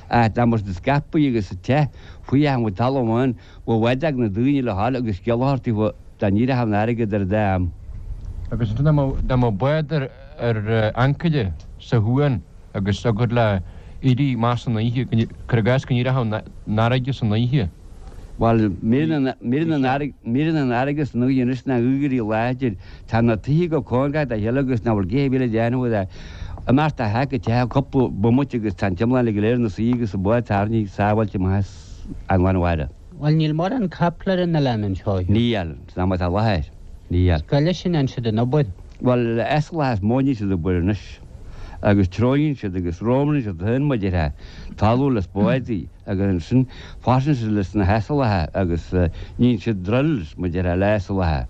Speaker 10: Ach dá mbeadh siad scaipthe agus te faoi achan bhfuil talamh ann, bheadh bád ag na daoine le dhul agus scéal a thabhairt daofa dá n-éireodh an fharraige idir an dá am.
Speaker 8: Agus ansin dá mbeadh bád ar ancaire sa chuan agus thiocfadh le éirí amach san oíche, cuir i gcás go n-éireodh an fharraige san oíche.
Speaker 10: Bhuel, m'éiríonn an fharraige san oíche anois ná éirí láidir. Tá na tithe go cóngarach dá chéile agus nach bhfuil gaoth ar bith le déanamh de. Imeacht de theach go teach cúpla bomaite agus tá an t-iomlán uilig go léir ina suí agus an bád tarraingthe sábháilte amach as an lán mhara.
Speaker 9: Bhuel, níl mórán capall ar an oileán anseo.
Speaker 10: Níl, san am atá i láthair, níl.
Speaker 9: Cá leis a ndéanann siad an obair?
Speaker 10: Bhuel, asalacha is mó a níonn siad obair anois. Agus treabhann siad agus rómhrann siad féin mar a déarfá, talamh le spádaí agus ansin fásann siad leis na hasalacha agus níonn siad drills mar a déarfá le hasalacha.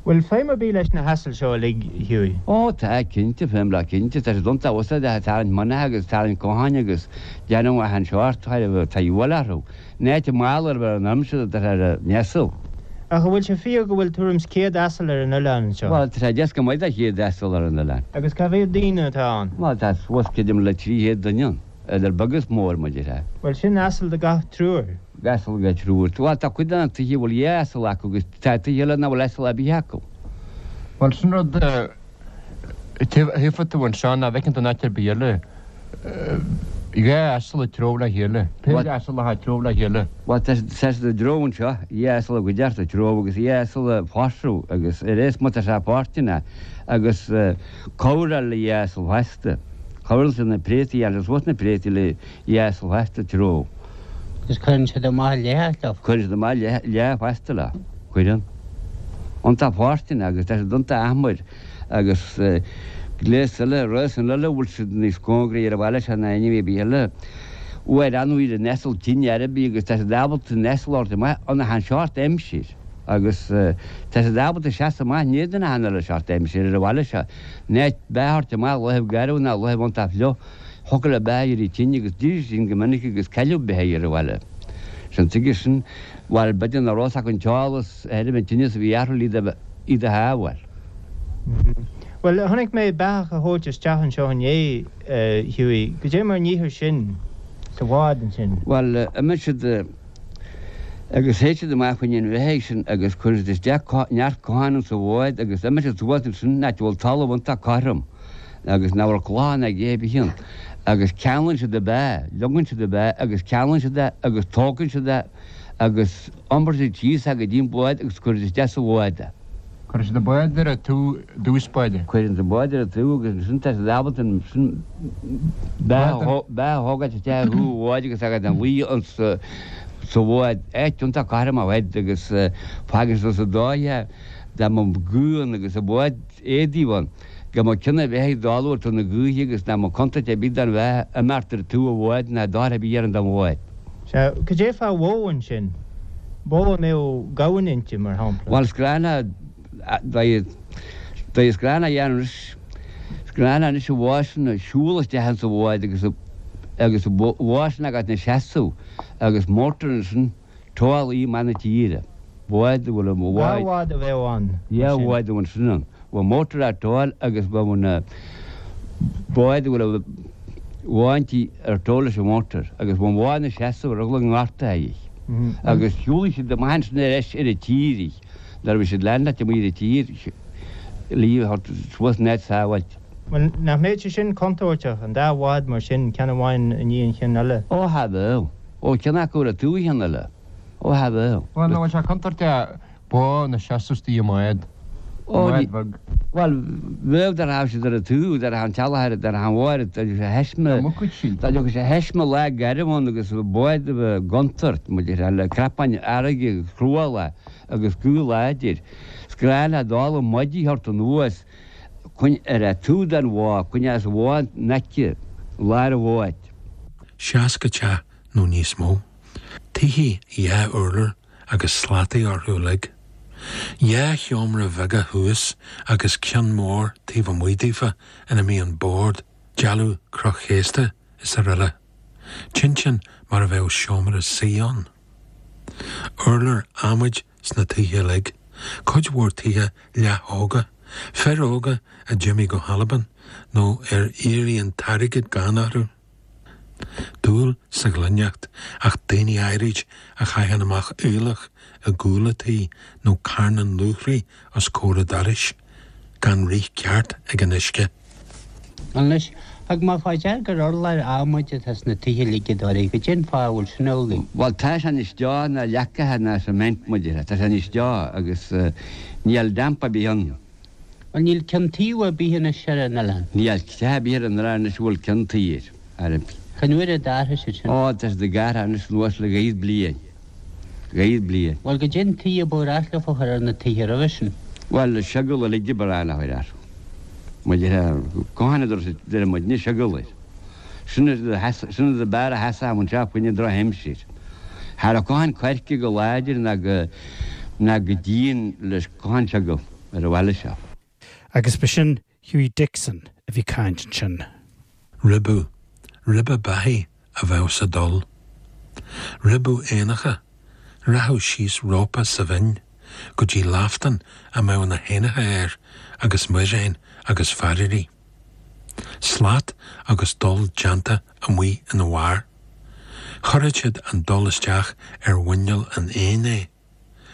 Speaker 6: Bhfuil feidhm ar bith leis na hasail seo uilig, Hughie?
Speaker 10: Ó tá, cinnte, feidhm leo cinnte. Tá siad iontach úsáideach ag tarraingt mianacha agus ag tarraingt cotháin agus déanamh achan seort, tá dhíobháil orthu. In áit a mála ar bheith an aimsir atá ar an asal.
Speaker 6: Ach an bhfuil sé fíor go bhfuil tuairim 's 100 asal ar an oileán anseo?
Speaker 10: Bhuel, tá sé deas go maith do 100 asal ar an oileán.
Speaker 6: Agus cá mhéad daoine atá ann?
Speaker 10: Bhuel, tá suas creidim le 300 duine ann, idir beag is mór, mar a déarfá.
Speaker 6: Bhuel, sin asal do gach triúr.
Speaker 10: Asal do gach triúr. Bhuel, tá cuid de na tithe a bhfuil dhá asal acu agus tá tithe eile nach bhfuil asal ar bith acu.
Speaker 8: Bhuel, sin rud. Tchífidh tú anseo nach bhfeiceann tú in áit ar bith eile. Dhá asal ag treabhadh le chéile. Péire asalacha ag treabhadh le chéile.
Speaker 10: Bhuel, tá siad ag treabhadh anseo, dhá asal i gcuideachta ag treabhadh agus dhá asal ag forsadh agus ar aon má tá sé páirteanna agus cabhráil le dhá asal fosta. Cabhraíonn siad na préataí, dhéanann siad suas na préataí le dhá asal fosta ag treabhadh.
Speaker 9: Agus cuireann siad amach leath leo.
Speaker 10: Cuireann siad amach leath fosta leo. Cuireann. Iontach fóirsteanach agus tá siad iontach achmair agus gléas eile, rásan eile a bhfuil siad níos cóngaraí ar an bhaile seo ná aon ar bith eile. Uair an bhfuil an asal tinn ar bith agus tá siad ábalta an asal a thabhairt amach in achan seort aimsir agus tá siad ábalta seasamh amach in éadan achan uile seort aimsir ar an bhaile seo. In áit beath a thabhairt amach laethibh garbh ná laethibh iontach fliuch, thiocfadh le beath éirí tinn agus d'éirigh tinn go minic agus cailleadh beithígh ar an bhaile. Sin tuige sin. Bhuel, b'fhéidir nach raibh fhios acu an t-eolas ar an tinneas a bhí orthu le iad a shábháil.
Speaker 6: Bhuel, chonaic mé beathach a thabhairt isteach anseo inné, a Hughie. Goidé mar a níthear sin sa bhád ansin?
Speaker 10: Bhuel, imíonn siad agus théid siad amach fá choinne an bheithígh sin agus cuireann siad isteach neart cotháin insa bhád agus imíonn siad suas ansin in áit a bhfuil talamh iontach cothrom agus nach bhfuil clocha ná a dhath ar bith ann agus ceanglann siad an beathach, leogann siad an beathach agus ceanglann siad é agus tógann siad é agus iompair siad síos é go dtí an bád agus cuireann siad isteach sa bhád é.
Speaker 8: Cuireann siad an bád ar an taobh i dtús báire.
Speaker 10: Cuireann siad an bád ar an taobh agus ansin tá siad ábalta ansin beathach a thógáilt isteach ar thaobh an bháid agus é ina luí sa bhád, áit iontach cothrom ar fad agus fágann siad sa dóigh é. Dá mba gaoth ann agus i bhfad éadaigh ann, go mba cionn a bheith ag dul uait na gaoithe agus nach mba contúirt ar bith don bheathach imeacht ar taobh an bháid ná dochar ar bith a dhéanamh don bhád.
Speaker 6: Sea, cad é fá bhó ansin? Bó a mbeadh gamhain inti, mar shampla.
Speaker 10: Bhuel, is gnách le, is gnách a dhéanamh anois, is gnách le anois an bhó sin a siúl isteach insa bhád agus, agus an bhó sin agat ina seasamh agus mótar ansin, Tógáil í amach na tíre. Bád a bhfuil an
Speaker 6: Dhá bhád a bheadh ann,
Speaker 10: mar sin. Dhá bhád ansin ann. Bhfuil mótar á tógáil agus bheadh na báid a bhfuil an bhó inti ar tógáil leis an mhótar agus bheadh an bhó ina seasamh ar eagla go ngortófaí í. Agus shiúlaigh siad amach ansin ar ais ar an tír í. Nuair a bhí siad lán leat amuigh ar an tír, ligeadh a thabhairt suas in áit sábháilte.
Speaker 6: Bhuel, nach mbeadh sé sin contúirteach, an dá bhád mar sin, ceann amháin i ndiaidh an chinn eile?
Speaker 10: Ó, cha bheadh. Ó, ceann acu ar taobh an chinn eile. Ó, cha bheadh.
Speaker 8: Bhuel, nach bhfuil sé contúirteach bó ina seasamh istigh i mbád, i mbád bheag?
Speaker 10: Bhuel, bheadh dá rachadh siad ar an taobh, dá rachadh an teallach ar, dá rachadh an bhó ar, dá dtiocfadh sé thaisme, dá dtiocfadh sé thaisme lá garbh ann agus bád a bheith i gcontúirt, muid ar le crapáin fharraige agus cruálach agus gaoth láidir. Is gnách le dul i maidí a thabhairt anuas chun ar an taobh den bhó, chun as an bhó in aice lár an bháid.
Speaker 2: 60 teach nó níos mó. Tithe dhá urlár agus slataí orthu uilig. Dhá sheomra bheaga thuas agus ceann mór taobh amuigh daofa ina mbíonn bord, dealbh croschéasta is araile. Tinteán mar a bheadh seomra suí ann. Urláir adhmaid sna tithe uilig, cuid mhór tithe leath-thógtha, fir óga a d'imigh go hAlbain nó ar éirigh an t-airgead gann orthu. Dúil sa ghloineacht ach daoine áirid a chaitheann amach aoileach i gcúl a tí nó carnán luachraí os comhair a dorais, gan rith ceart ag an uisce.
Speaker 9: Anois, thug mé fá dear gur urláir adhmaid atá sna tithe uilig i dToraigh, goidé an fáth a bhfuil sin amhlaidh?
Speaker 10: Bhuel, tá sé níos deo ná leacacha ná cement, mar a déarfá. Tá sé níos deo agus níl damp ar bith ann.
Speaker 9: Bhuel, níl ceann taobh ar bith anois ar an oileán.
Speaker 10: Níl teach ar bith ar an oileán anois a bhfuil ceann tuí air. Ar.
Speaker 9: Cén uair a d'athraigh siad sin?
Speaker 10: Ó, tá siad ag athrú anois anuas le dhá fhichead bliain. Dhá fhichead bliain.
Speaker 9: Bhuel, goidé an tuí a ba ghnách leofa a chur ar na tithe roimhe sin?
Speaker 10: Bhuel, seogal uilig a ba ghnách leo a chur air. Mar a déarfá, conchán a deir muidne, seogal air. Sin an rud ab fhearr a sheasfadh anseo fá choinne drochaimsir. Cha raibh conchán coirce go láidir ná go ná go dian leis conchán seogal ar an bhaile seo.
Speaker 1: Agus b'shin Hughie Dixon a bhí caint ansin.
Speaker 2: Ribeadh, ribeadh beathaí a bheadh sa dol. Ribeadh éanacha, rachadh síos rópa sa bhinn go dtí laftán a mbeadh na héanacha air agus muiréin agus fairírí. Slat agus dol déanta amuigh ina bharr. Chuirfeadh siad an dol isteach ar mhuineál an éin é,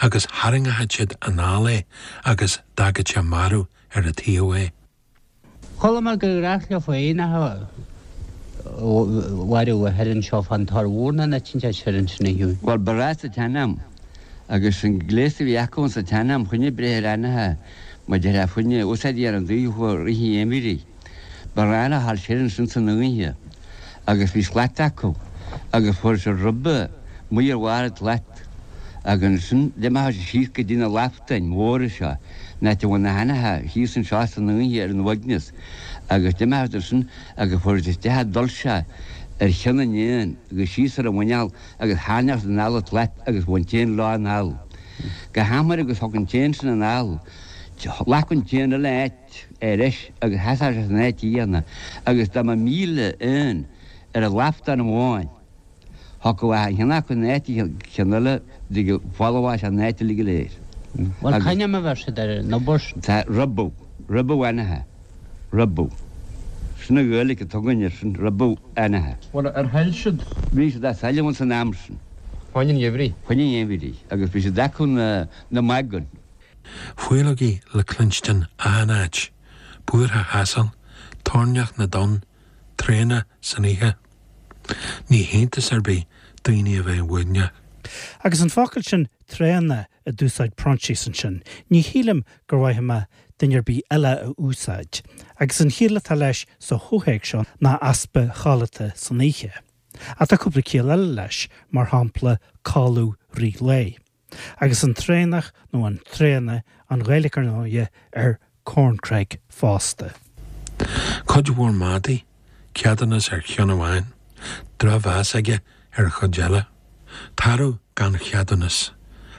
Speaker 2: agus tharraingeochadh siad anall é agus d'fhágfadh sé marbh ar a taobh é.
Speaker 9: Chuala mé gur ghnách leofa éanacha a mharú thoir anseo fán Tor Mhór nó an áit inteacht soir ansin a Hughie.
Speaker 10: Bhuel, ba ghnách sa tsean-am, agus an gléas a bhí acu insa tsean-am choinne breith ar éanacha, mar a déarfá fá choinne úsáid a dhéanamh daofa i rith an gheimhridh. Ba ghnách leo a ghabháil soir ansin san oíche agus bhí slat acu agus fuair siad ribe amuigh ar bharr an tslat agus ansin d'imeodh siad síos go dtí na laftáin mhóra seo, an áit a bhfuil na héanacha thíos anseo san oíche ar an uaigneas agus d'imeodh siad ansin agus fuair siad isteach an dol seo ar cheann an éin agus síos ar a mhuineál agus tharraingeodh siad anall an tslat agus bheadh an t-éan leo anall go hathuair agus thiocfadh an t-éan sin anall, ghlacfadh an t-éan eile a áit ar ais agus sheasfadh sé san áit chéanna agus dá mba 1,000 éan ar an laftán amháin, thiocfadh achan cheann acu in áit an cheann eile go bhfolmhódh sé an áit uilig go léir.
Speaker 9: Bhuel, c'ainm a bheir siad ar an obair sin?
Speaker 10: Tá ribeadh, ribeadh éanacha, ribeadh. Sin an Ghaeilge atá againn air sin, ribeadh éanacha.
Speaker 8: Bhuel, ar thail siad?
Speaker 10: Bhí siad á sailleadh ins an am sin.
Speaker 8: Fá choinne an gheimhridh?
Speaker 10: Fá choinne an gheimhridh. Agus bhí siad acu na magan.
Speaker 2: Faoileogaí le cluinstin achan áit, búirtheach asail, toirneach na dtonn, traona san oíche. Ní hiontas ar bith daoine a bheith uaigneach.
Speaker 1: Agus an focal sin 'traona' a d'úsáid Proinsias ansin, ní shílim gur mhaith liom duine ar bith eile a úsáid. Agus an chiall atá leis sa chomhthéacs seo ná easpa chodlata san oíche. Ach tá cúpla ciall eile leis, mar shampla codladh rith lae. Agus an Traonach nó an Traonaigh, an Ghaeilge ar ndóighe, ar Corncrake fosta.
Speaker 2: Cuid mhór madaí, ceadúnas ar cheann amháin, drochmheas aige ar an chuid eile. Tarbh gan cheadúnas.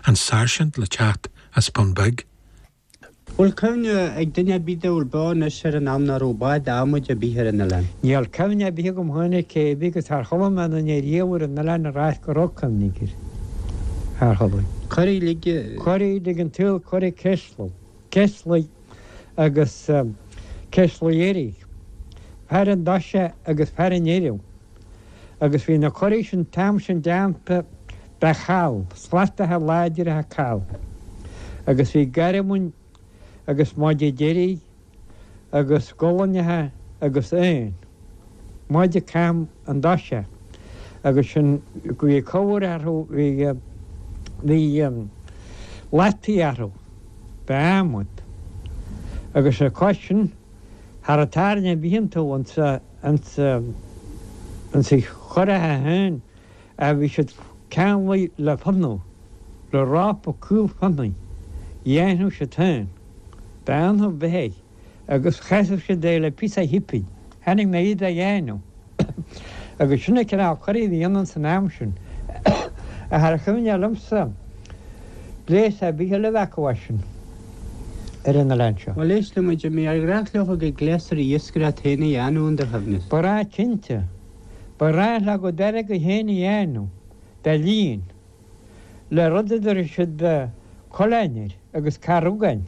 Speaker 2: An sáirsint le teacht as Bun Beag.
Speaker 9: Bhfuil cuimhne ag duine ar bith dá bhfuil beo anois ar an am ná raibh bád adhmaid ar bith ar an oileán?
Speaker 11: Níl cuimhne ar bith agam féin ar cé bith agus char chuala mé aon duine riamh ar an oileán ag ráit go raibh cuimhne aige air. Char chuala.
Speaker 9: Curaigh uilig.
Speaker 11: Curaigh uilig an tsaoil, curaigh Ceislidh, Ceislidh agus Ceislidh Iarthaigh, fear an Doise agus fear an Iarthaigh. Agus bhí na curaigh sin t-am sin déanta de chall, slatacha láidre call. Agus bhí garbhain agus maide deiridh agus gualainneacha agus éin, maide cam an doise agus sin bhí cabhair orthu, bhí, bhí lataí orthu d'adhmad. Agus ar cois sin, cha raibh tairne ar bith iontu ansa, Ins na curacha féin a bhí siad ceanglaithe le fionnadh, le rópa caol fionnaidh, dhéanadh siad féin, d'fhionnadh beithígh agus chasadh siad é le píosa chipín. Chonaic mé iad á dhéanamh agus sin an cineál curaí a bhí ann san am sin. Ach char chuimhne liomsa gléas ar bith eile a bheith acu as sin ar an oileán seo.
Speaker 9: Bhuel, éist liom, a Jimí, ar ghnách leo a gcuid gléasraí iascaireachta féin a dhéanamh, in do chuimhne?
Speaker 11: Ba ghnách cinnte. Ba ghnách leo a gcuid airgead féin a dhéanamh, de líon, le rud a dtabharfadh siad coileáin air agus carrugáin.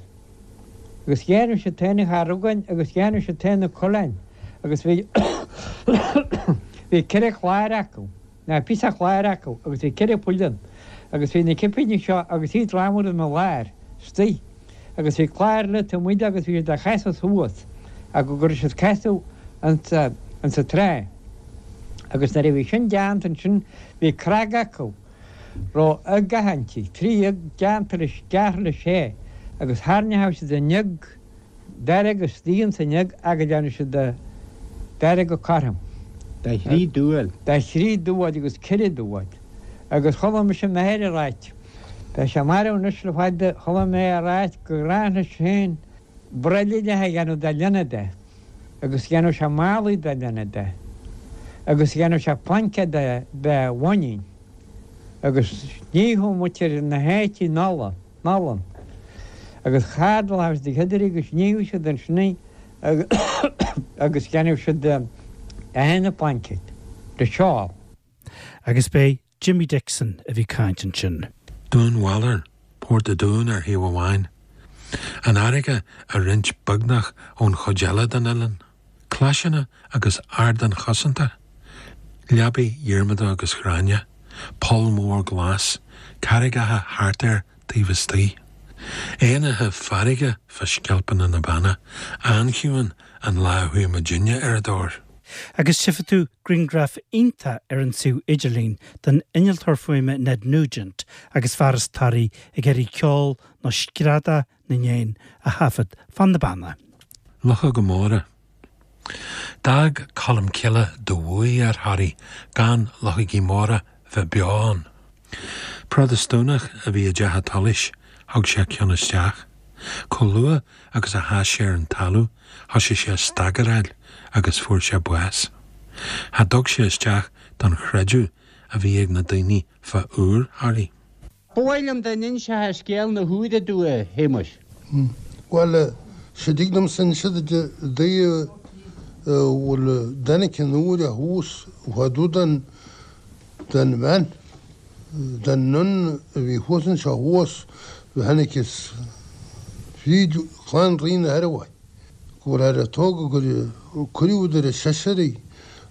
Speaker 11: Agus dhéanadh siad féin na carrugáin agus dhéanadh siad féin na coileáin agus bhí bhí ceithre chlár acu. Ná píosa cláir acu agus bhí ceithre phoill ann agus bhí na cipíní seo agus iad ramhar ina lár istigh agus bhí clár eile taobh amuigh de agus bhí siad á chasadh suas ach go raibh siad casadh insa insa trá agus nuair a bhí sin deánta ansin bhí cnag acu raibh uigeacha inti, trí uig deánta leis gearrtha le sé agus thairneochadh siad an uig Dearg istigh ins an uig agus dhéanadh siad dearg cothrom.
Speaker 9: De thrí dúil.
Speaker 11: De thrí dúil agus ceithre dúil. Agus chuala mise m'athair ag ráit, tá sé marbh anois le fada, chuala mé é ag ráit gur ghnách leis féin broillíneacha a dhéanamh de ghloine de agus dhéanadh sé málaí de ghloine de agus dhéanadh sé plaincéad de de bhainín agus níodh muintir na háite in ola. n-olann. Agus chardalódh siad a gcuid agus níodh siad ansin í agus dhéanadh siad achan phlaincéad de seál.
Speaker 1: Agus b'é Jimmy Dixon a bhí caint ansin.
Speaker 2: Dún Bhaloir, Port a' Dúin ar thaobh amháin, an fharraige á roinnt beagnach ón chuid eile den oileán. Claiseanna agus ardáin chosanta, leabaí Dhiarmada agus Ghráinne, poll mór glas, carraigeacha thart air taobh istigh. Éanacha farraige fá sceilpeanna na Banna, an-chiúin an lá a chuaigh muidinne ar a dtóir.
Speaker 1: Agus tchífidh tú grianghraf iontach ar an suíomh idirlín den innealtóir fuaime Ned Nugent agus fear as Toraigh ag iarraidh ceol nó screadach na n-éan a thaifead fan na Banna.
Speaker 2: Luchóga móra. D'fhág Colm Cille de bhuaidh ar Thoraigh gan luchógaí móra bheith beo ann. Protastúnach a bhí i dteach a' tsolais, thug sé ceann isteach. Chomh luath agus a sheas sé ar an talamh thoisigh sé a stagaráil agus fuair sé bás. Cha dtug sé isteach don chreideamh a bhí ag na daoine fá iúr Thoraí.
Speaker 9: Ba mhaith liom dá n-inseofá scéal na húire domh, a Shéamuis.
Speaker 7: Bhuel, sea dtig liomsa inse duit i dtaobh bhfuil dtáinig an úire thuas fá dtaobh den, den bhean, den nun a bhí thuas anseo thuas, tháinig is fríd chlann Rí na hIorua, go bhfuil ar a tógadh gur cuireadh idir an seisear í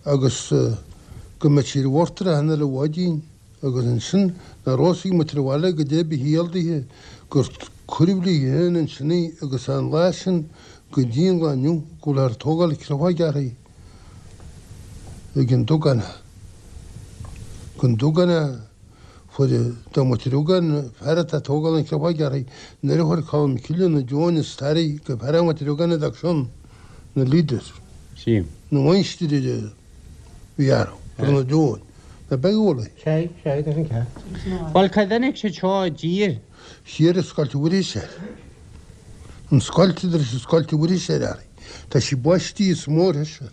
Speaker 7: agus go mbeadh sí ar bhord ar an uile mhaidin. Agus ansin nár fhios ag muintir an bhaile goidé ba chiall dithe gur cuireadh léi féin ansin í agus an lá sin go dtí an lá inniu go bhfuil ag tógáil creafóige uirthi ag an Dugánach. Ag an Dugánach fuair do muintir Ugáin fear atá ag tógáil an chreafóige uirthi nuair a chuir Colm Cille na deoin is tairbhe go fear a muintir Ugáin a d'fhág sin na leaders.
Speaker 9: Sí.
Speaker 7: Na mháistir ar a bhí orthu ar na deoin. Ná beidh ualaí.
Speaker 9: Sea, sea, tá sin ceart. Bhuel, cá dtáinig siad seo i dtír?
Speaker 7: Thiar i Scoilt Mhuiris air. An scoilt idir is an Scoilt Mhuiris air air. Tá sí baistí is mór thoir.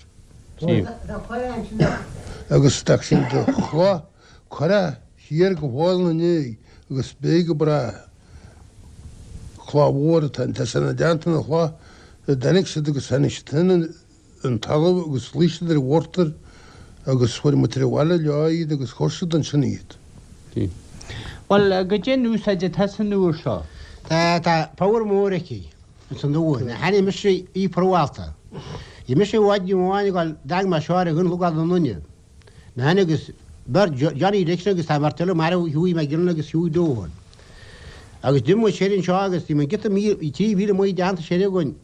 Speaker 7: Agus tá sin de chloch curtha thiar go Fál na Né agus beidh go bráth. Cloch mhór atá ann. Tá sé ina dteannta na chloch a dtáinig siad agus tháinig siad féin an talamh agus luigh siad ar an mhortar agus fuair muintir an bhaile leo iad agus chuir siad ansin iad.
Speaker 9: Bhuel, goidé an úsáid atá san iúr seo?
Speaker 5: Tá, tá power mór aici ins an iúr. Tháinig mise í promhálta. Bhí mise i bhfad amháin ag dul, d'fhág mé seo ar an gcnocán anonn. Mé féin agus beirt, Johnny Dixon agus tá beirt eile marbh, Hughie McGinley agus Hughie Doohan. Agus d'imigh muid siar anseo agus bhí muid giota míle, bhí 3,000 amuigh déanta siar againn.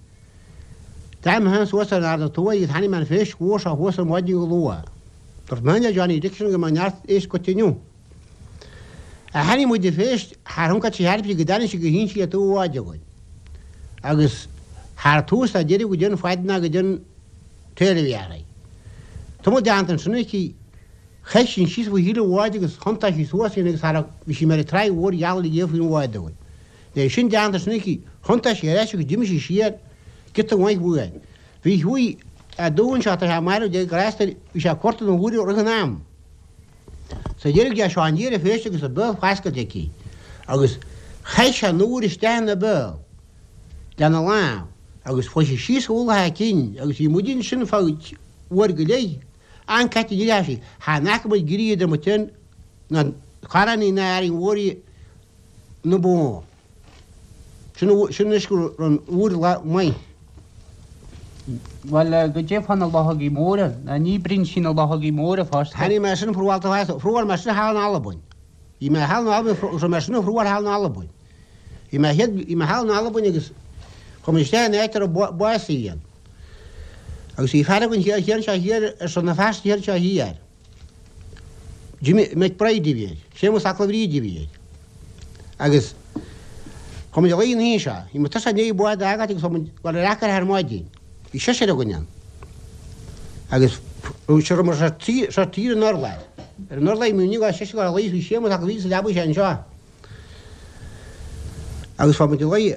Speaker 5: D'fhág mé féin suas ar an Ard an Tuaidh agus tháinig mé an phéist mhór seo thuas ar maidin go luath. Dúirt mé féin le Johnny Dixon go mbeadh neart éisc agat inniu. Ach tháinig muid an phéist thar thioncaid sí thar go dtáinig sí go hInsí le taobh an bháid againn. Agus thar tús ná deireadh go dtí an fad ná go dtí an taobh a bhí uirthi. Tamall déanta ansin aici, chaith sí síos faoi thaobh an bháid agus thiontaigh sí suas í agus thar bhí sí mar an tráigh mhór gheal uilig faoin bhád againn. Nuair sin déanta ansin aici, thiontaigh sí ar ais agus d'imigh sí siar giota mhaith uainn. Bhí Hughie Doohan seo, tá sé marbh, Dia grásta air, bhí sé ag cuartú na huaire roimh an am. Sa deireadh d'fhéach seo aniar an phéist agus a béal foscailte aici agus chaith sé an iúr isteach ina béal lena lámh agus chuaigh sí síos a ualach a cinn agus bhí muid ansin feadh uair go leith. An cat a d'fhéach sí, chan fhaca muid grí idir muid féin ná Carránaí ná Árainn Mhór í na bó. Sin sin anois go raibh an iúr lá maith.
Speaker 9: Bhuel, goidé fá na luchógaí móra? Ná ní oibríonn sí na luchógaí móra fosta.
Speaker 5: Tháinig mé sin promhálta fosta. Phrobháil mé sin thall in Albain. Bhí mé thall in Albain, raibh mé sin a phrobháil thall in Albain. Bhí mé chéad, bhí mé thall in Albain agus chuaigh mé isteach in áit a raibh básaí ann. Agus bhí fear againn thiar thiar anseo thiar ar son na feasta thiar anseo thiar. Jimmy McBride a bhí air, Séamus 'Ac Bhríde a bhí air. Agus chuaigh muid a luí an oíche seo. Bhí muid tusa i ndiaidh bád a fhágáilt agus chuaigh muid dul ar acair ar maidin. Bhí seisear againn ann. Agus seo raibh muid seo tír an urláir. Ar an urlár bhí muid seisear ag luí bhí Séamus 'Ac Bhríde sa leabaidh sé anseo. Agus chuaigh muid a luí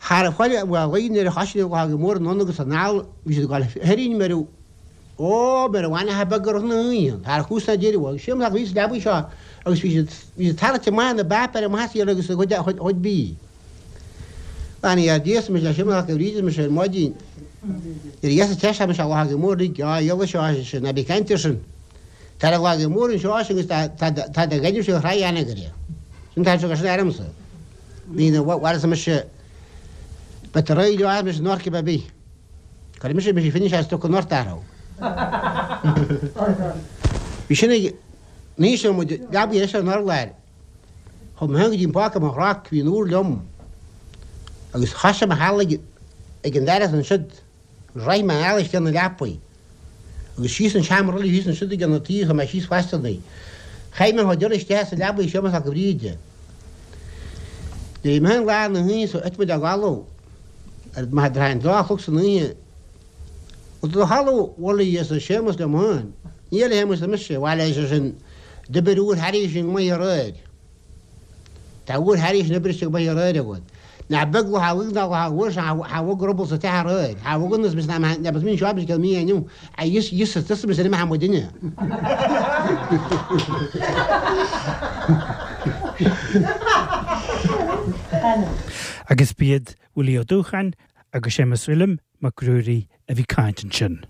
Speaker 5: thar a chuile a luí nuair a thoisigh na luchógaí móra anonn agus anall bhí siad ag dul tharainn mar Ó, mar a bhainfeadh beag orthu na hoícheanta, thar chús na deireadh, agus Séamus 'Ac Bhríde sa leabaidh seo agus bhí siad, bhí siad tarraingte amach ina bpáipéir amach as iarraidh agus a chuid, a chuid, a chuid bídh. Bheannaigh ar Dia, arsa mise le Séamus 'Ac Bhríde, arsa mise ar maidin. Nuair a dheas an teist, mise a luchógaí mór uilig, á, eolas seo, ar seisean, ná bí ag caint air sin. Tá na luchógaí móra anseo, ar seisean, agus tá, tá, tá do ghainimh sé thraigh anagaire. Sin tá sé, sin aramsa. Ní na, bhuel, arsa mise, beidh tú réidh leo, arsa mise, in orc ar bith. Cuirfidh mise mise finish as stuck an ort athrú. Bhí sin ag ní seo muid leabaidh eis ar an urlár. Chuaigh mé féin go dtí an páca mo chnoc, bhí an iúr liom agus thoisigh mé thall ag ag an doras ansiud agus rith mé anall isteach na leapaidh agus síos an seomra eile thíos ansiud ag an taobh chuaigh mé síos fosta ní. Chaith mé an chuid eile isteach sa leabaidh Séamus 'Ac Bhríde. Nuair a bhí mé féin lá na hoíche so thit muid a gcodladh. Ar maith a an dá chlog san oíche. Bhuel do chodladh bhuel arsa Séamus liom féin. Níl a Shéamuis arsa mise, bhail ar seisean, d'oibir iúr thairis sin go maith aréir. Tá iúr thairis sin oibrithe go maith aréir agat. Nach beag luchóg ná luchóg mhór sin cha bhog ruball sa teach aréir. Cha bhog ionas mise ná ná bas mín seo mise céad mí inniu. A fhios fhios is tusa mise imithe amuigh duine.
Speaker 1: Agus b'iad Willie Ó Dúcháin agus Séamus Uilliam Mac Ruairí a bhí caint ansin.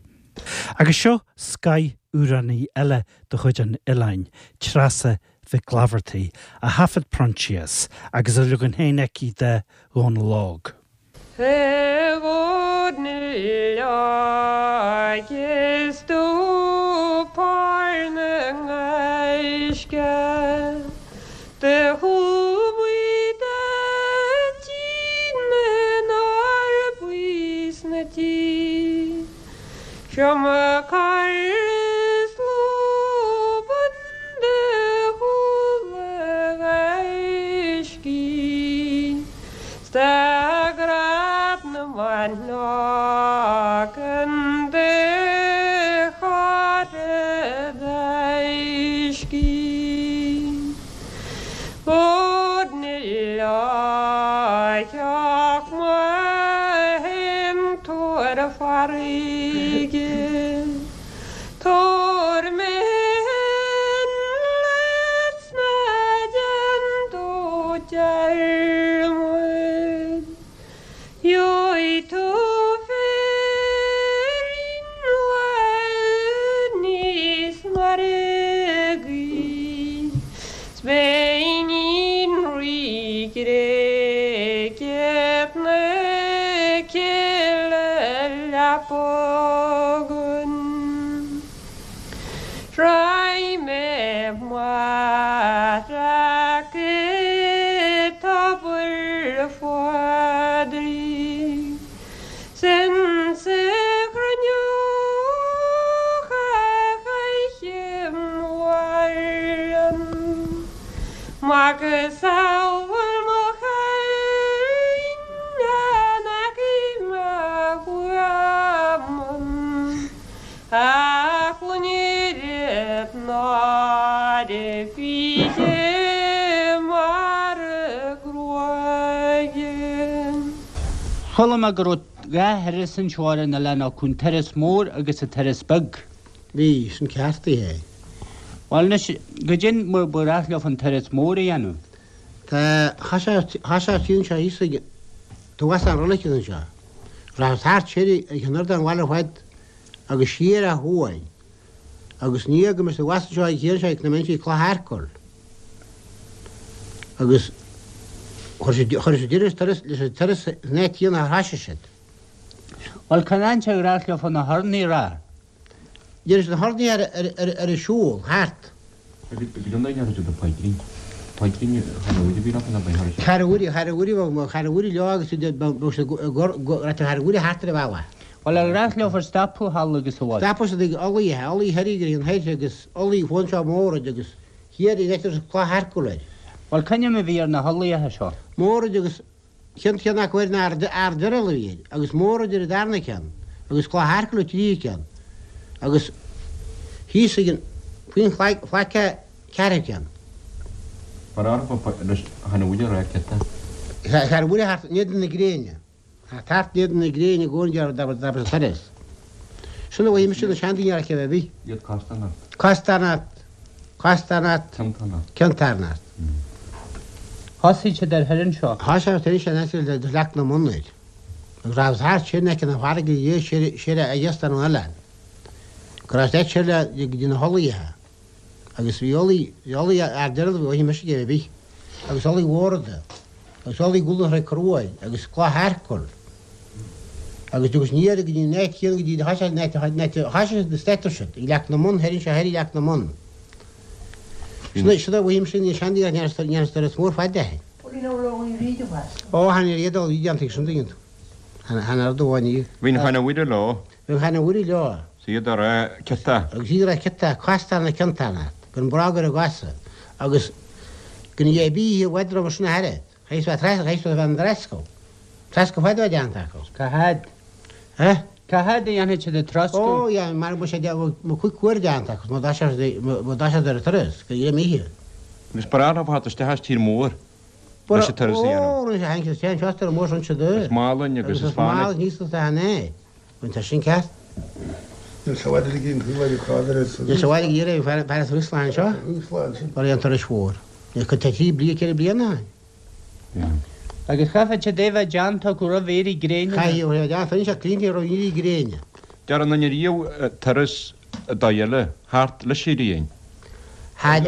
Speaker 1: Agus seo scoth-amhránaí eile de chuid an oileáin, Treasa Mhic Laifeartaigh, a thaifead Proinsias agus a leagan féin aici de Dhónal Óg.
Speaker 12: A Dhónaill óig is tú pár na ngaisce Do chuaigh do dtí na n-arbaí 's na tí Seo mo chara is lúbann do chuala gaiscí 'S tá grad na mban ag an do chara gaiscí. theach mo shintiúir farraige. Tabhair mé féin leat 's ná déan tú dearmad. Gheobhaidh tú féirín lá níos mairgí 's beidh iníon Rí Ghréige na cille leapa againn. Raghaidh mé amach go Tobar Phádraig 's insa chruinneog a chaithim mhaireann macasamhail mo chailín in aice mo bhuamann. Ach loinnir náire fíche mar gruaige.
Speaker 9: Chuala mé go raibh dha thuras anseo ar an oileán acu, an turas mór agus an turas beag.
Speaker 5: Bhí, sin ceart é.
Speaker 9: Bhuel anois, goidé mar ba ghnách leofa an turas mór a dhéanamh?
Speaker 5: Tá, thá sé thíos anseo thíos ag, tá an roilig anseo. Rachaidh thart siar ag an ardán bhaile ar fad agus siar ó thuaidh agus ní fhaca mise abhus anseo ag thiar anseo ag na mBinsí Cloch Earcail agus chuir siad chuir siad deireadh turas leis an turas san áit chéanna ar thoisigh siad.
Speaker 9: Bhuel cén áit ar ghnách leofa na hurnaí a rá?
Speaker 5: Deireadh siad na hurnaí ar ar an siúl thart.
Speaker 9: Bhuel ar ghnách leofa stopadh thall agus abhus?
Speaker 5: Stopadh siad ag Ulaidh, Ulaidh thoir ag an thoir agus Ulaidh fón seo Mórad agus thiar ag Leitir Cloich Earcail air.
Speaker 9: Bhuel c'ainm a bhí ar na hUllaithe seo?
Speaker 5: Mórad agus Ceann ceann acu ar an Ard Ard-Oiriall a bhí air, agus Mórad ar an darna ceann, agus Cloich Earcail an tríú ceann, agus thíos ag an, faoin chlaic, phlaic an ceathrú ceann.
Speaker 8: Mar arbh leis chan fhuil a rá ciota.
Speaker 5: Chan fhuil thart in éadan na gréine. Thart in éadan na gréine i gcónaí dá raibh sa turas. Sin a mhaígh mise na seandaoine ar chéibh ar bith.
Speaker 8: Iad casta ort.
Speaker 5: Casta ort. Casta ort. Cionta ort.
Speaker 9: Thosaigh siad ar thoir anseo.
Speaker 5: Thosaigh siad ar thoir anseo in aice le Leac na mBonn air. Agus raibh thart siar in aice na farraige dhe siar siar a dheas den oileán. Go raibh siad siar le go dtí na hUllaithe. Agus bhí Ulaidh, bhí Ulaidh ar deireadh bhí mise ag ar bith. Agus Ulaidh Mhórada. Agus Ulaidh Ghuala Thraigh Cruaidh agus Cloich Earcail. Agus agus ní ar go dtí an áit chéanna go dtí thosaigh siad an áit an áit a thosaigh siad na staitir siad ag Leac na mBonn thoir anseo thoir ag Leac na mBonn. Sin é, sin é uaim sin, ní seandaí ach ní turas mór fada é. Ó, tháinig ar iad ó bhí déanta ag sin tuigeann tú. Tháinig ar do bháin iad.
Speaker 8: Bhí an Chana Mhuire leo.
Speaker 5: Bhí an Chana Mhuire leo.
Speaker 8: 'S iad a rá ciota.
Speaker 5: Agus iad a rá ciota, casta na cionta gan brág ar a gcosa agus gan a bith i bhfad roimhe sin a thairbhe. Chaithfeas bheith trasna, chaithfeas bheith an trascadh. Trascadh fada a bheith déanta acu.
Speaker 9: Cá fhad?
Speaker 5: Eh?
Speaker 9: Cá fhad a dhéanfaidh siad an troscadh?
Speaker 5: Ó, yeah, mar bheadh sé mo chuid cuair déanta acu, má d'fhás siad ar an turas, go dtí oíche.
Speaker 8: Agus ba ghnáth leo theacht isteach as tír mór leis an turas a dhéanamh.
Speaker 5: Ó, rinne sé tháinig siad isteach anseo as tír mór sin siad.
Speaker 8: As Málainn agus
Speaker 5: as
Speaker 8: as Fánaid.
Speaker 5: Agus as Málainn thíos is a né. Bhain sé sin ceart.
Speaker 7: Níl sé i bhfad ag an taobh eile cá bhfios.
Speaker 5: Níl sé i bhfad ag iarraidh fear as Rúslan anseo. Mar an turas mhór. Níl cuid de thrí bliana, ceithre bliana ann.
Speaker 9: Agus chaithfeadh siad é bheith déanta acu roimh éirí gréine.
Speaker 5: Chaithfeadh é bheith déanta, rinne sé cliaint roimh éirí gréine.
Speaker 8: Deir an duine riamh turas dóigh eile thart leis an ghrian.
Speaker 5: Char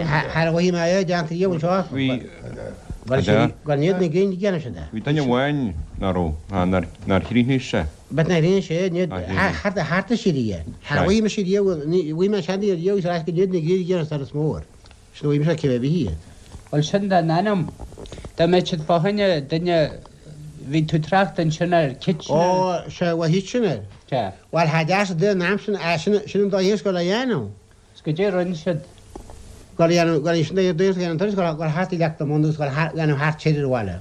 Speaker 5: mhothaigh mé é déanta riamh anseo.
Speaker 8: Bhí.
Speaker 5: Gan iad na gréine déanann siad é.
Speaker 8: Bhí duine amháin ná raibh, nár chríochnaigh sé.
Speaker 5: But nár chríochnaigh sé, ní thart thart is siar é. Char mhothaigh mise riamh, mhothaigh mé seandaí riamh agus ar ais go n-iad na gréine déanann turas mór. Sin a mhothaigh mise cibé bith iad.
Speaker 9: Bhuel sin den ainm. Dá mbeadh siad fá choinne duine, bhí tú ag trácht ansin ar Kitchener.
Speaker 5: Ó, sea, bhuel Kitchener.
Speaker 9: Sea.
Speaker 5: Bhuel, tha deas den am sin, ah, sin, sin an dóigh is go le dhéanamh.
Speaker 9: 'S goidé a rinne siad.
Speaker 5: Go le dhéanamh, go le, sin an dóigh is go dhéanamh an turas, go le, go le thart i Leac na mBonn agus go le thart, dhéanamh thart siar ar an bhaile.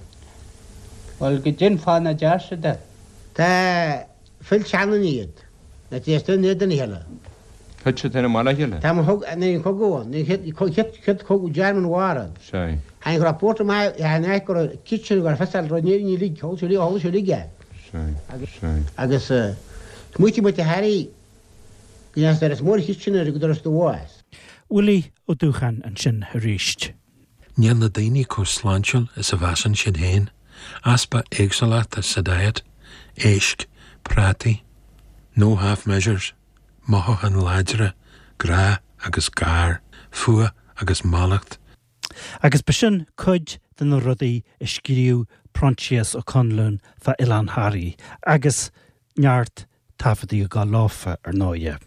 Speaker 9: Bhuel, goidé an fáth nach deir siad é.
Speaker 5: Tá, phill seanduine iad. Na téasta in éadan a chéile.
Speaker 8: Tuite féin i mbaile a chéile?
Speaker 5: Tá mo thug, nuair an cogadh ann, nuair an chéad, chéad cogadh German War ann.
Speaker 8: Sea.
Speaker 5: Tháinig go raibh port maith, an áit go raibh kitchen go raibh fios ar raibh ní uilig, thóg sé uilig, thóg sé uilig é.
Speaker 8: Sea, sea.
Speaker 5: Agus smaoitigh muid a Harry go ndeachaigh doras mór kitchen ar go doras do bhás.
Speaker 1: Willie Ó Dúcháin ansin arís.
Speaker 2: Níl na daoine chomh sláintiúil is a mheasann siad féin, easpa éagsúlachta sa diet, éisc, prátaí, no half measures, mothúcháin láidre, grá agus gar, fuath agus mallacht.
Speaker 1: Agus b'shin cuid de na rudaí a scríobh Proinsias Ó Conluain fá Oileán Thoraí agus neart taifeadtaí ag gabháil leofa, ar ndóighe.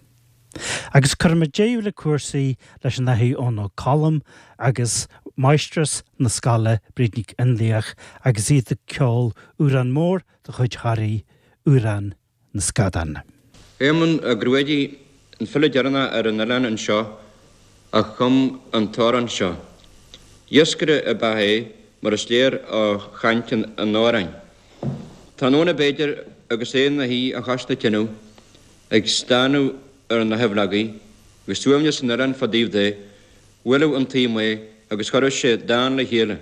Speaker 1: Agus cuirfimid deireadh le cúrsaí leis an Athair Eoin Ó Colm agus Máistreás na scoile, Bríd Nic Fhionnlaoich, agus iad ag ceol amhrán mór de chuid Thoraí, Amhrán na Scadán.
Speaker 8: Éamonn Ó Gruadaigh, an file deireanach ar an oileán anseo a chum an t-amhrán seo. Iascaire ab ea é mar is léir ó chaint an amhráin. Tráthnóna b'fhéidir agus é ina shuí a chois na tineadh ag stánadh ar na haibhleogaí, agus suaimhneas an oileáin fá dtaobh de, bhuaileadh an taom é agus chuireadh sé dán le chéile.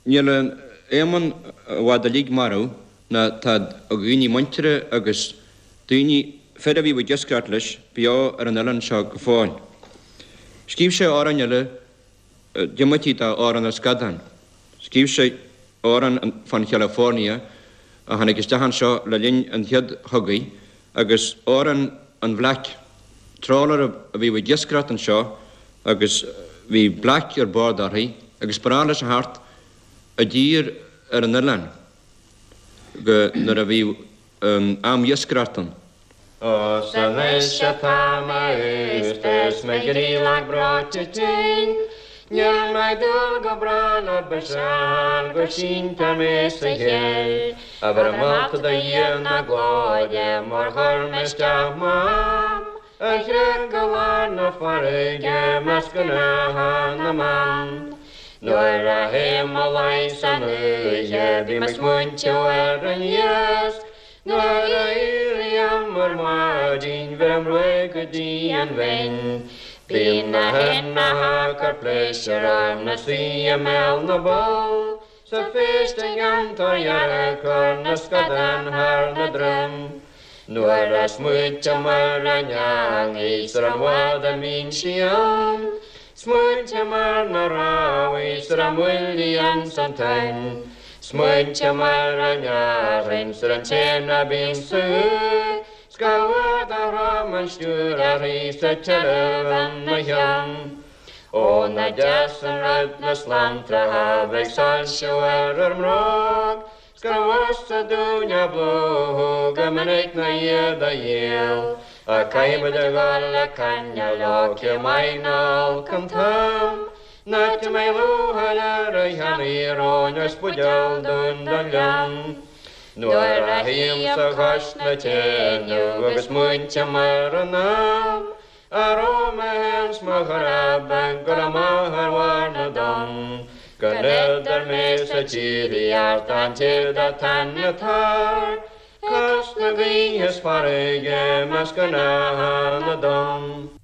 Speaker 8: Níl Éamonn i bhfad uilig marbh ná tá a dhaoine muintire agus daoine, fir a bhíodh ag iascaireacht leis, beo ar an oileán seo go fóill. Scríobh sé amhráin eile diomaite d'Amhrán na Scadán. Scríobh sé amhrán fán Chalifornia a tháinig isteach anseo le linn an Chéad Chogaidh agus amhrán an Bhlaic, trawler a bhíodh ag iascaireacht anseo agus bhí blaic ar bord uirthi agus ba ghnách leis a theacht i dtír ar an oileán go nuair a bhíodh am iascaireachta ann.
Speaker 13: Ó 's anois atá mé aosta is mo chroí lag breoite tinn, Níl mé ag dúil go bráth le biseach go síntear mé sa chill, A bheith molta do Dhia na glóire mar chuir mé isteach m'am, A chreach go lár na farraige measc gnátha na mban. Nuair a théim mo luí san oíche bím ag smaointiú ar an iasc, Nuair a éirím ar maidin bheirim ruaig go dtí an bhinn. Bíonn na haibhneacha ag cur pléisiúir orm 'na suí i mbéal na bpoll. 'S a phéist ag an tor dhearg cur na scadán thar na droim. Nuair a smaointím ar an eangaí 's ar an bhfad a mbíonn sí ann, Smaointím ar na rámhaí 's ar a mbuillí ins an toinn. Smaointím ar an fhearthainn 's ar an té ná bíonn sa 's gach uair dá throm an stiúir uirthi 's an tuilleamh ina chionn. Ó nach deas an rud na slantracha bheith ag soilsiú ar ár mbróg 's gur mheasa dúinn a bplúchadh go minic ná iad a dhíol. Ach caithfimid a dhul ag coinneáil leo cé maith nó olc an t-am. An áit a mbeidh lúcháir ar a cheannaí róin is buidéal dúinn don ghleann. Nuair a shuímse cois na teineadh agus smaointím ar an am a raibh mé féin 's mo chara beag ag dul amach ar bharr na dtonn go n-idir mé 's an tírdhreach an tír atá ina tor cois na gaoithe 's farraige measc gnátha na dtonn.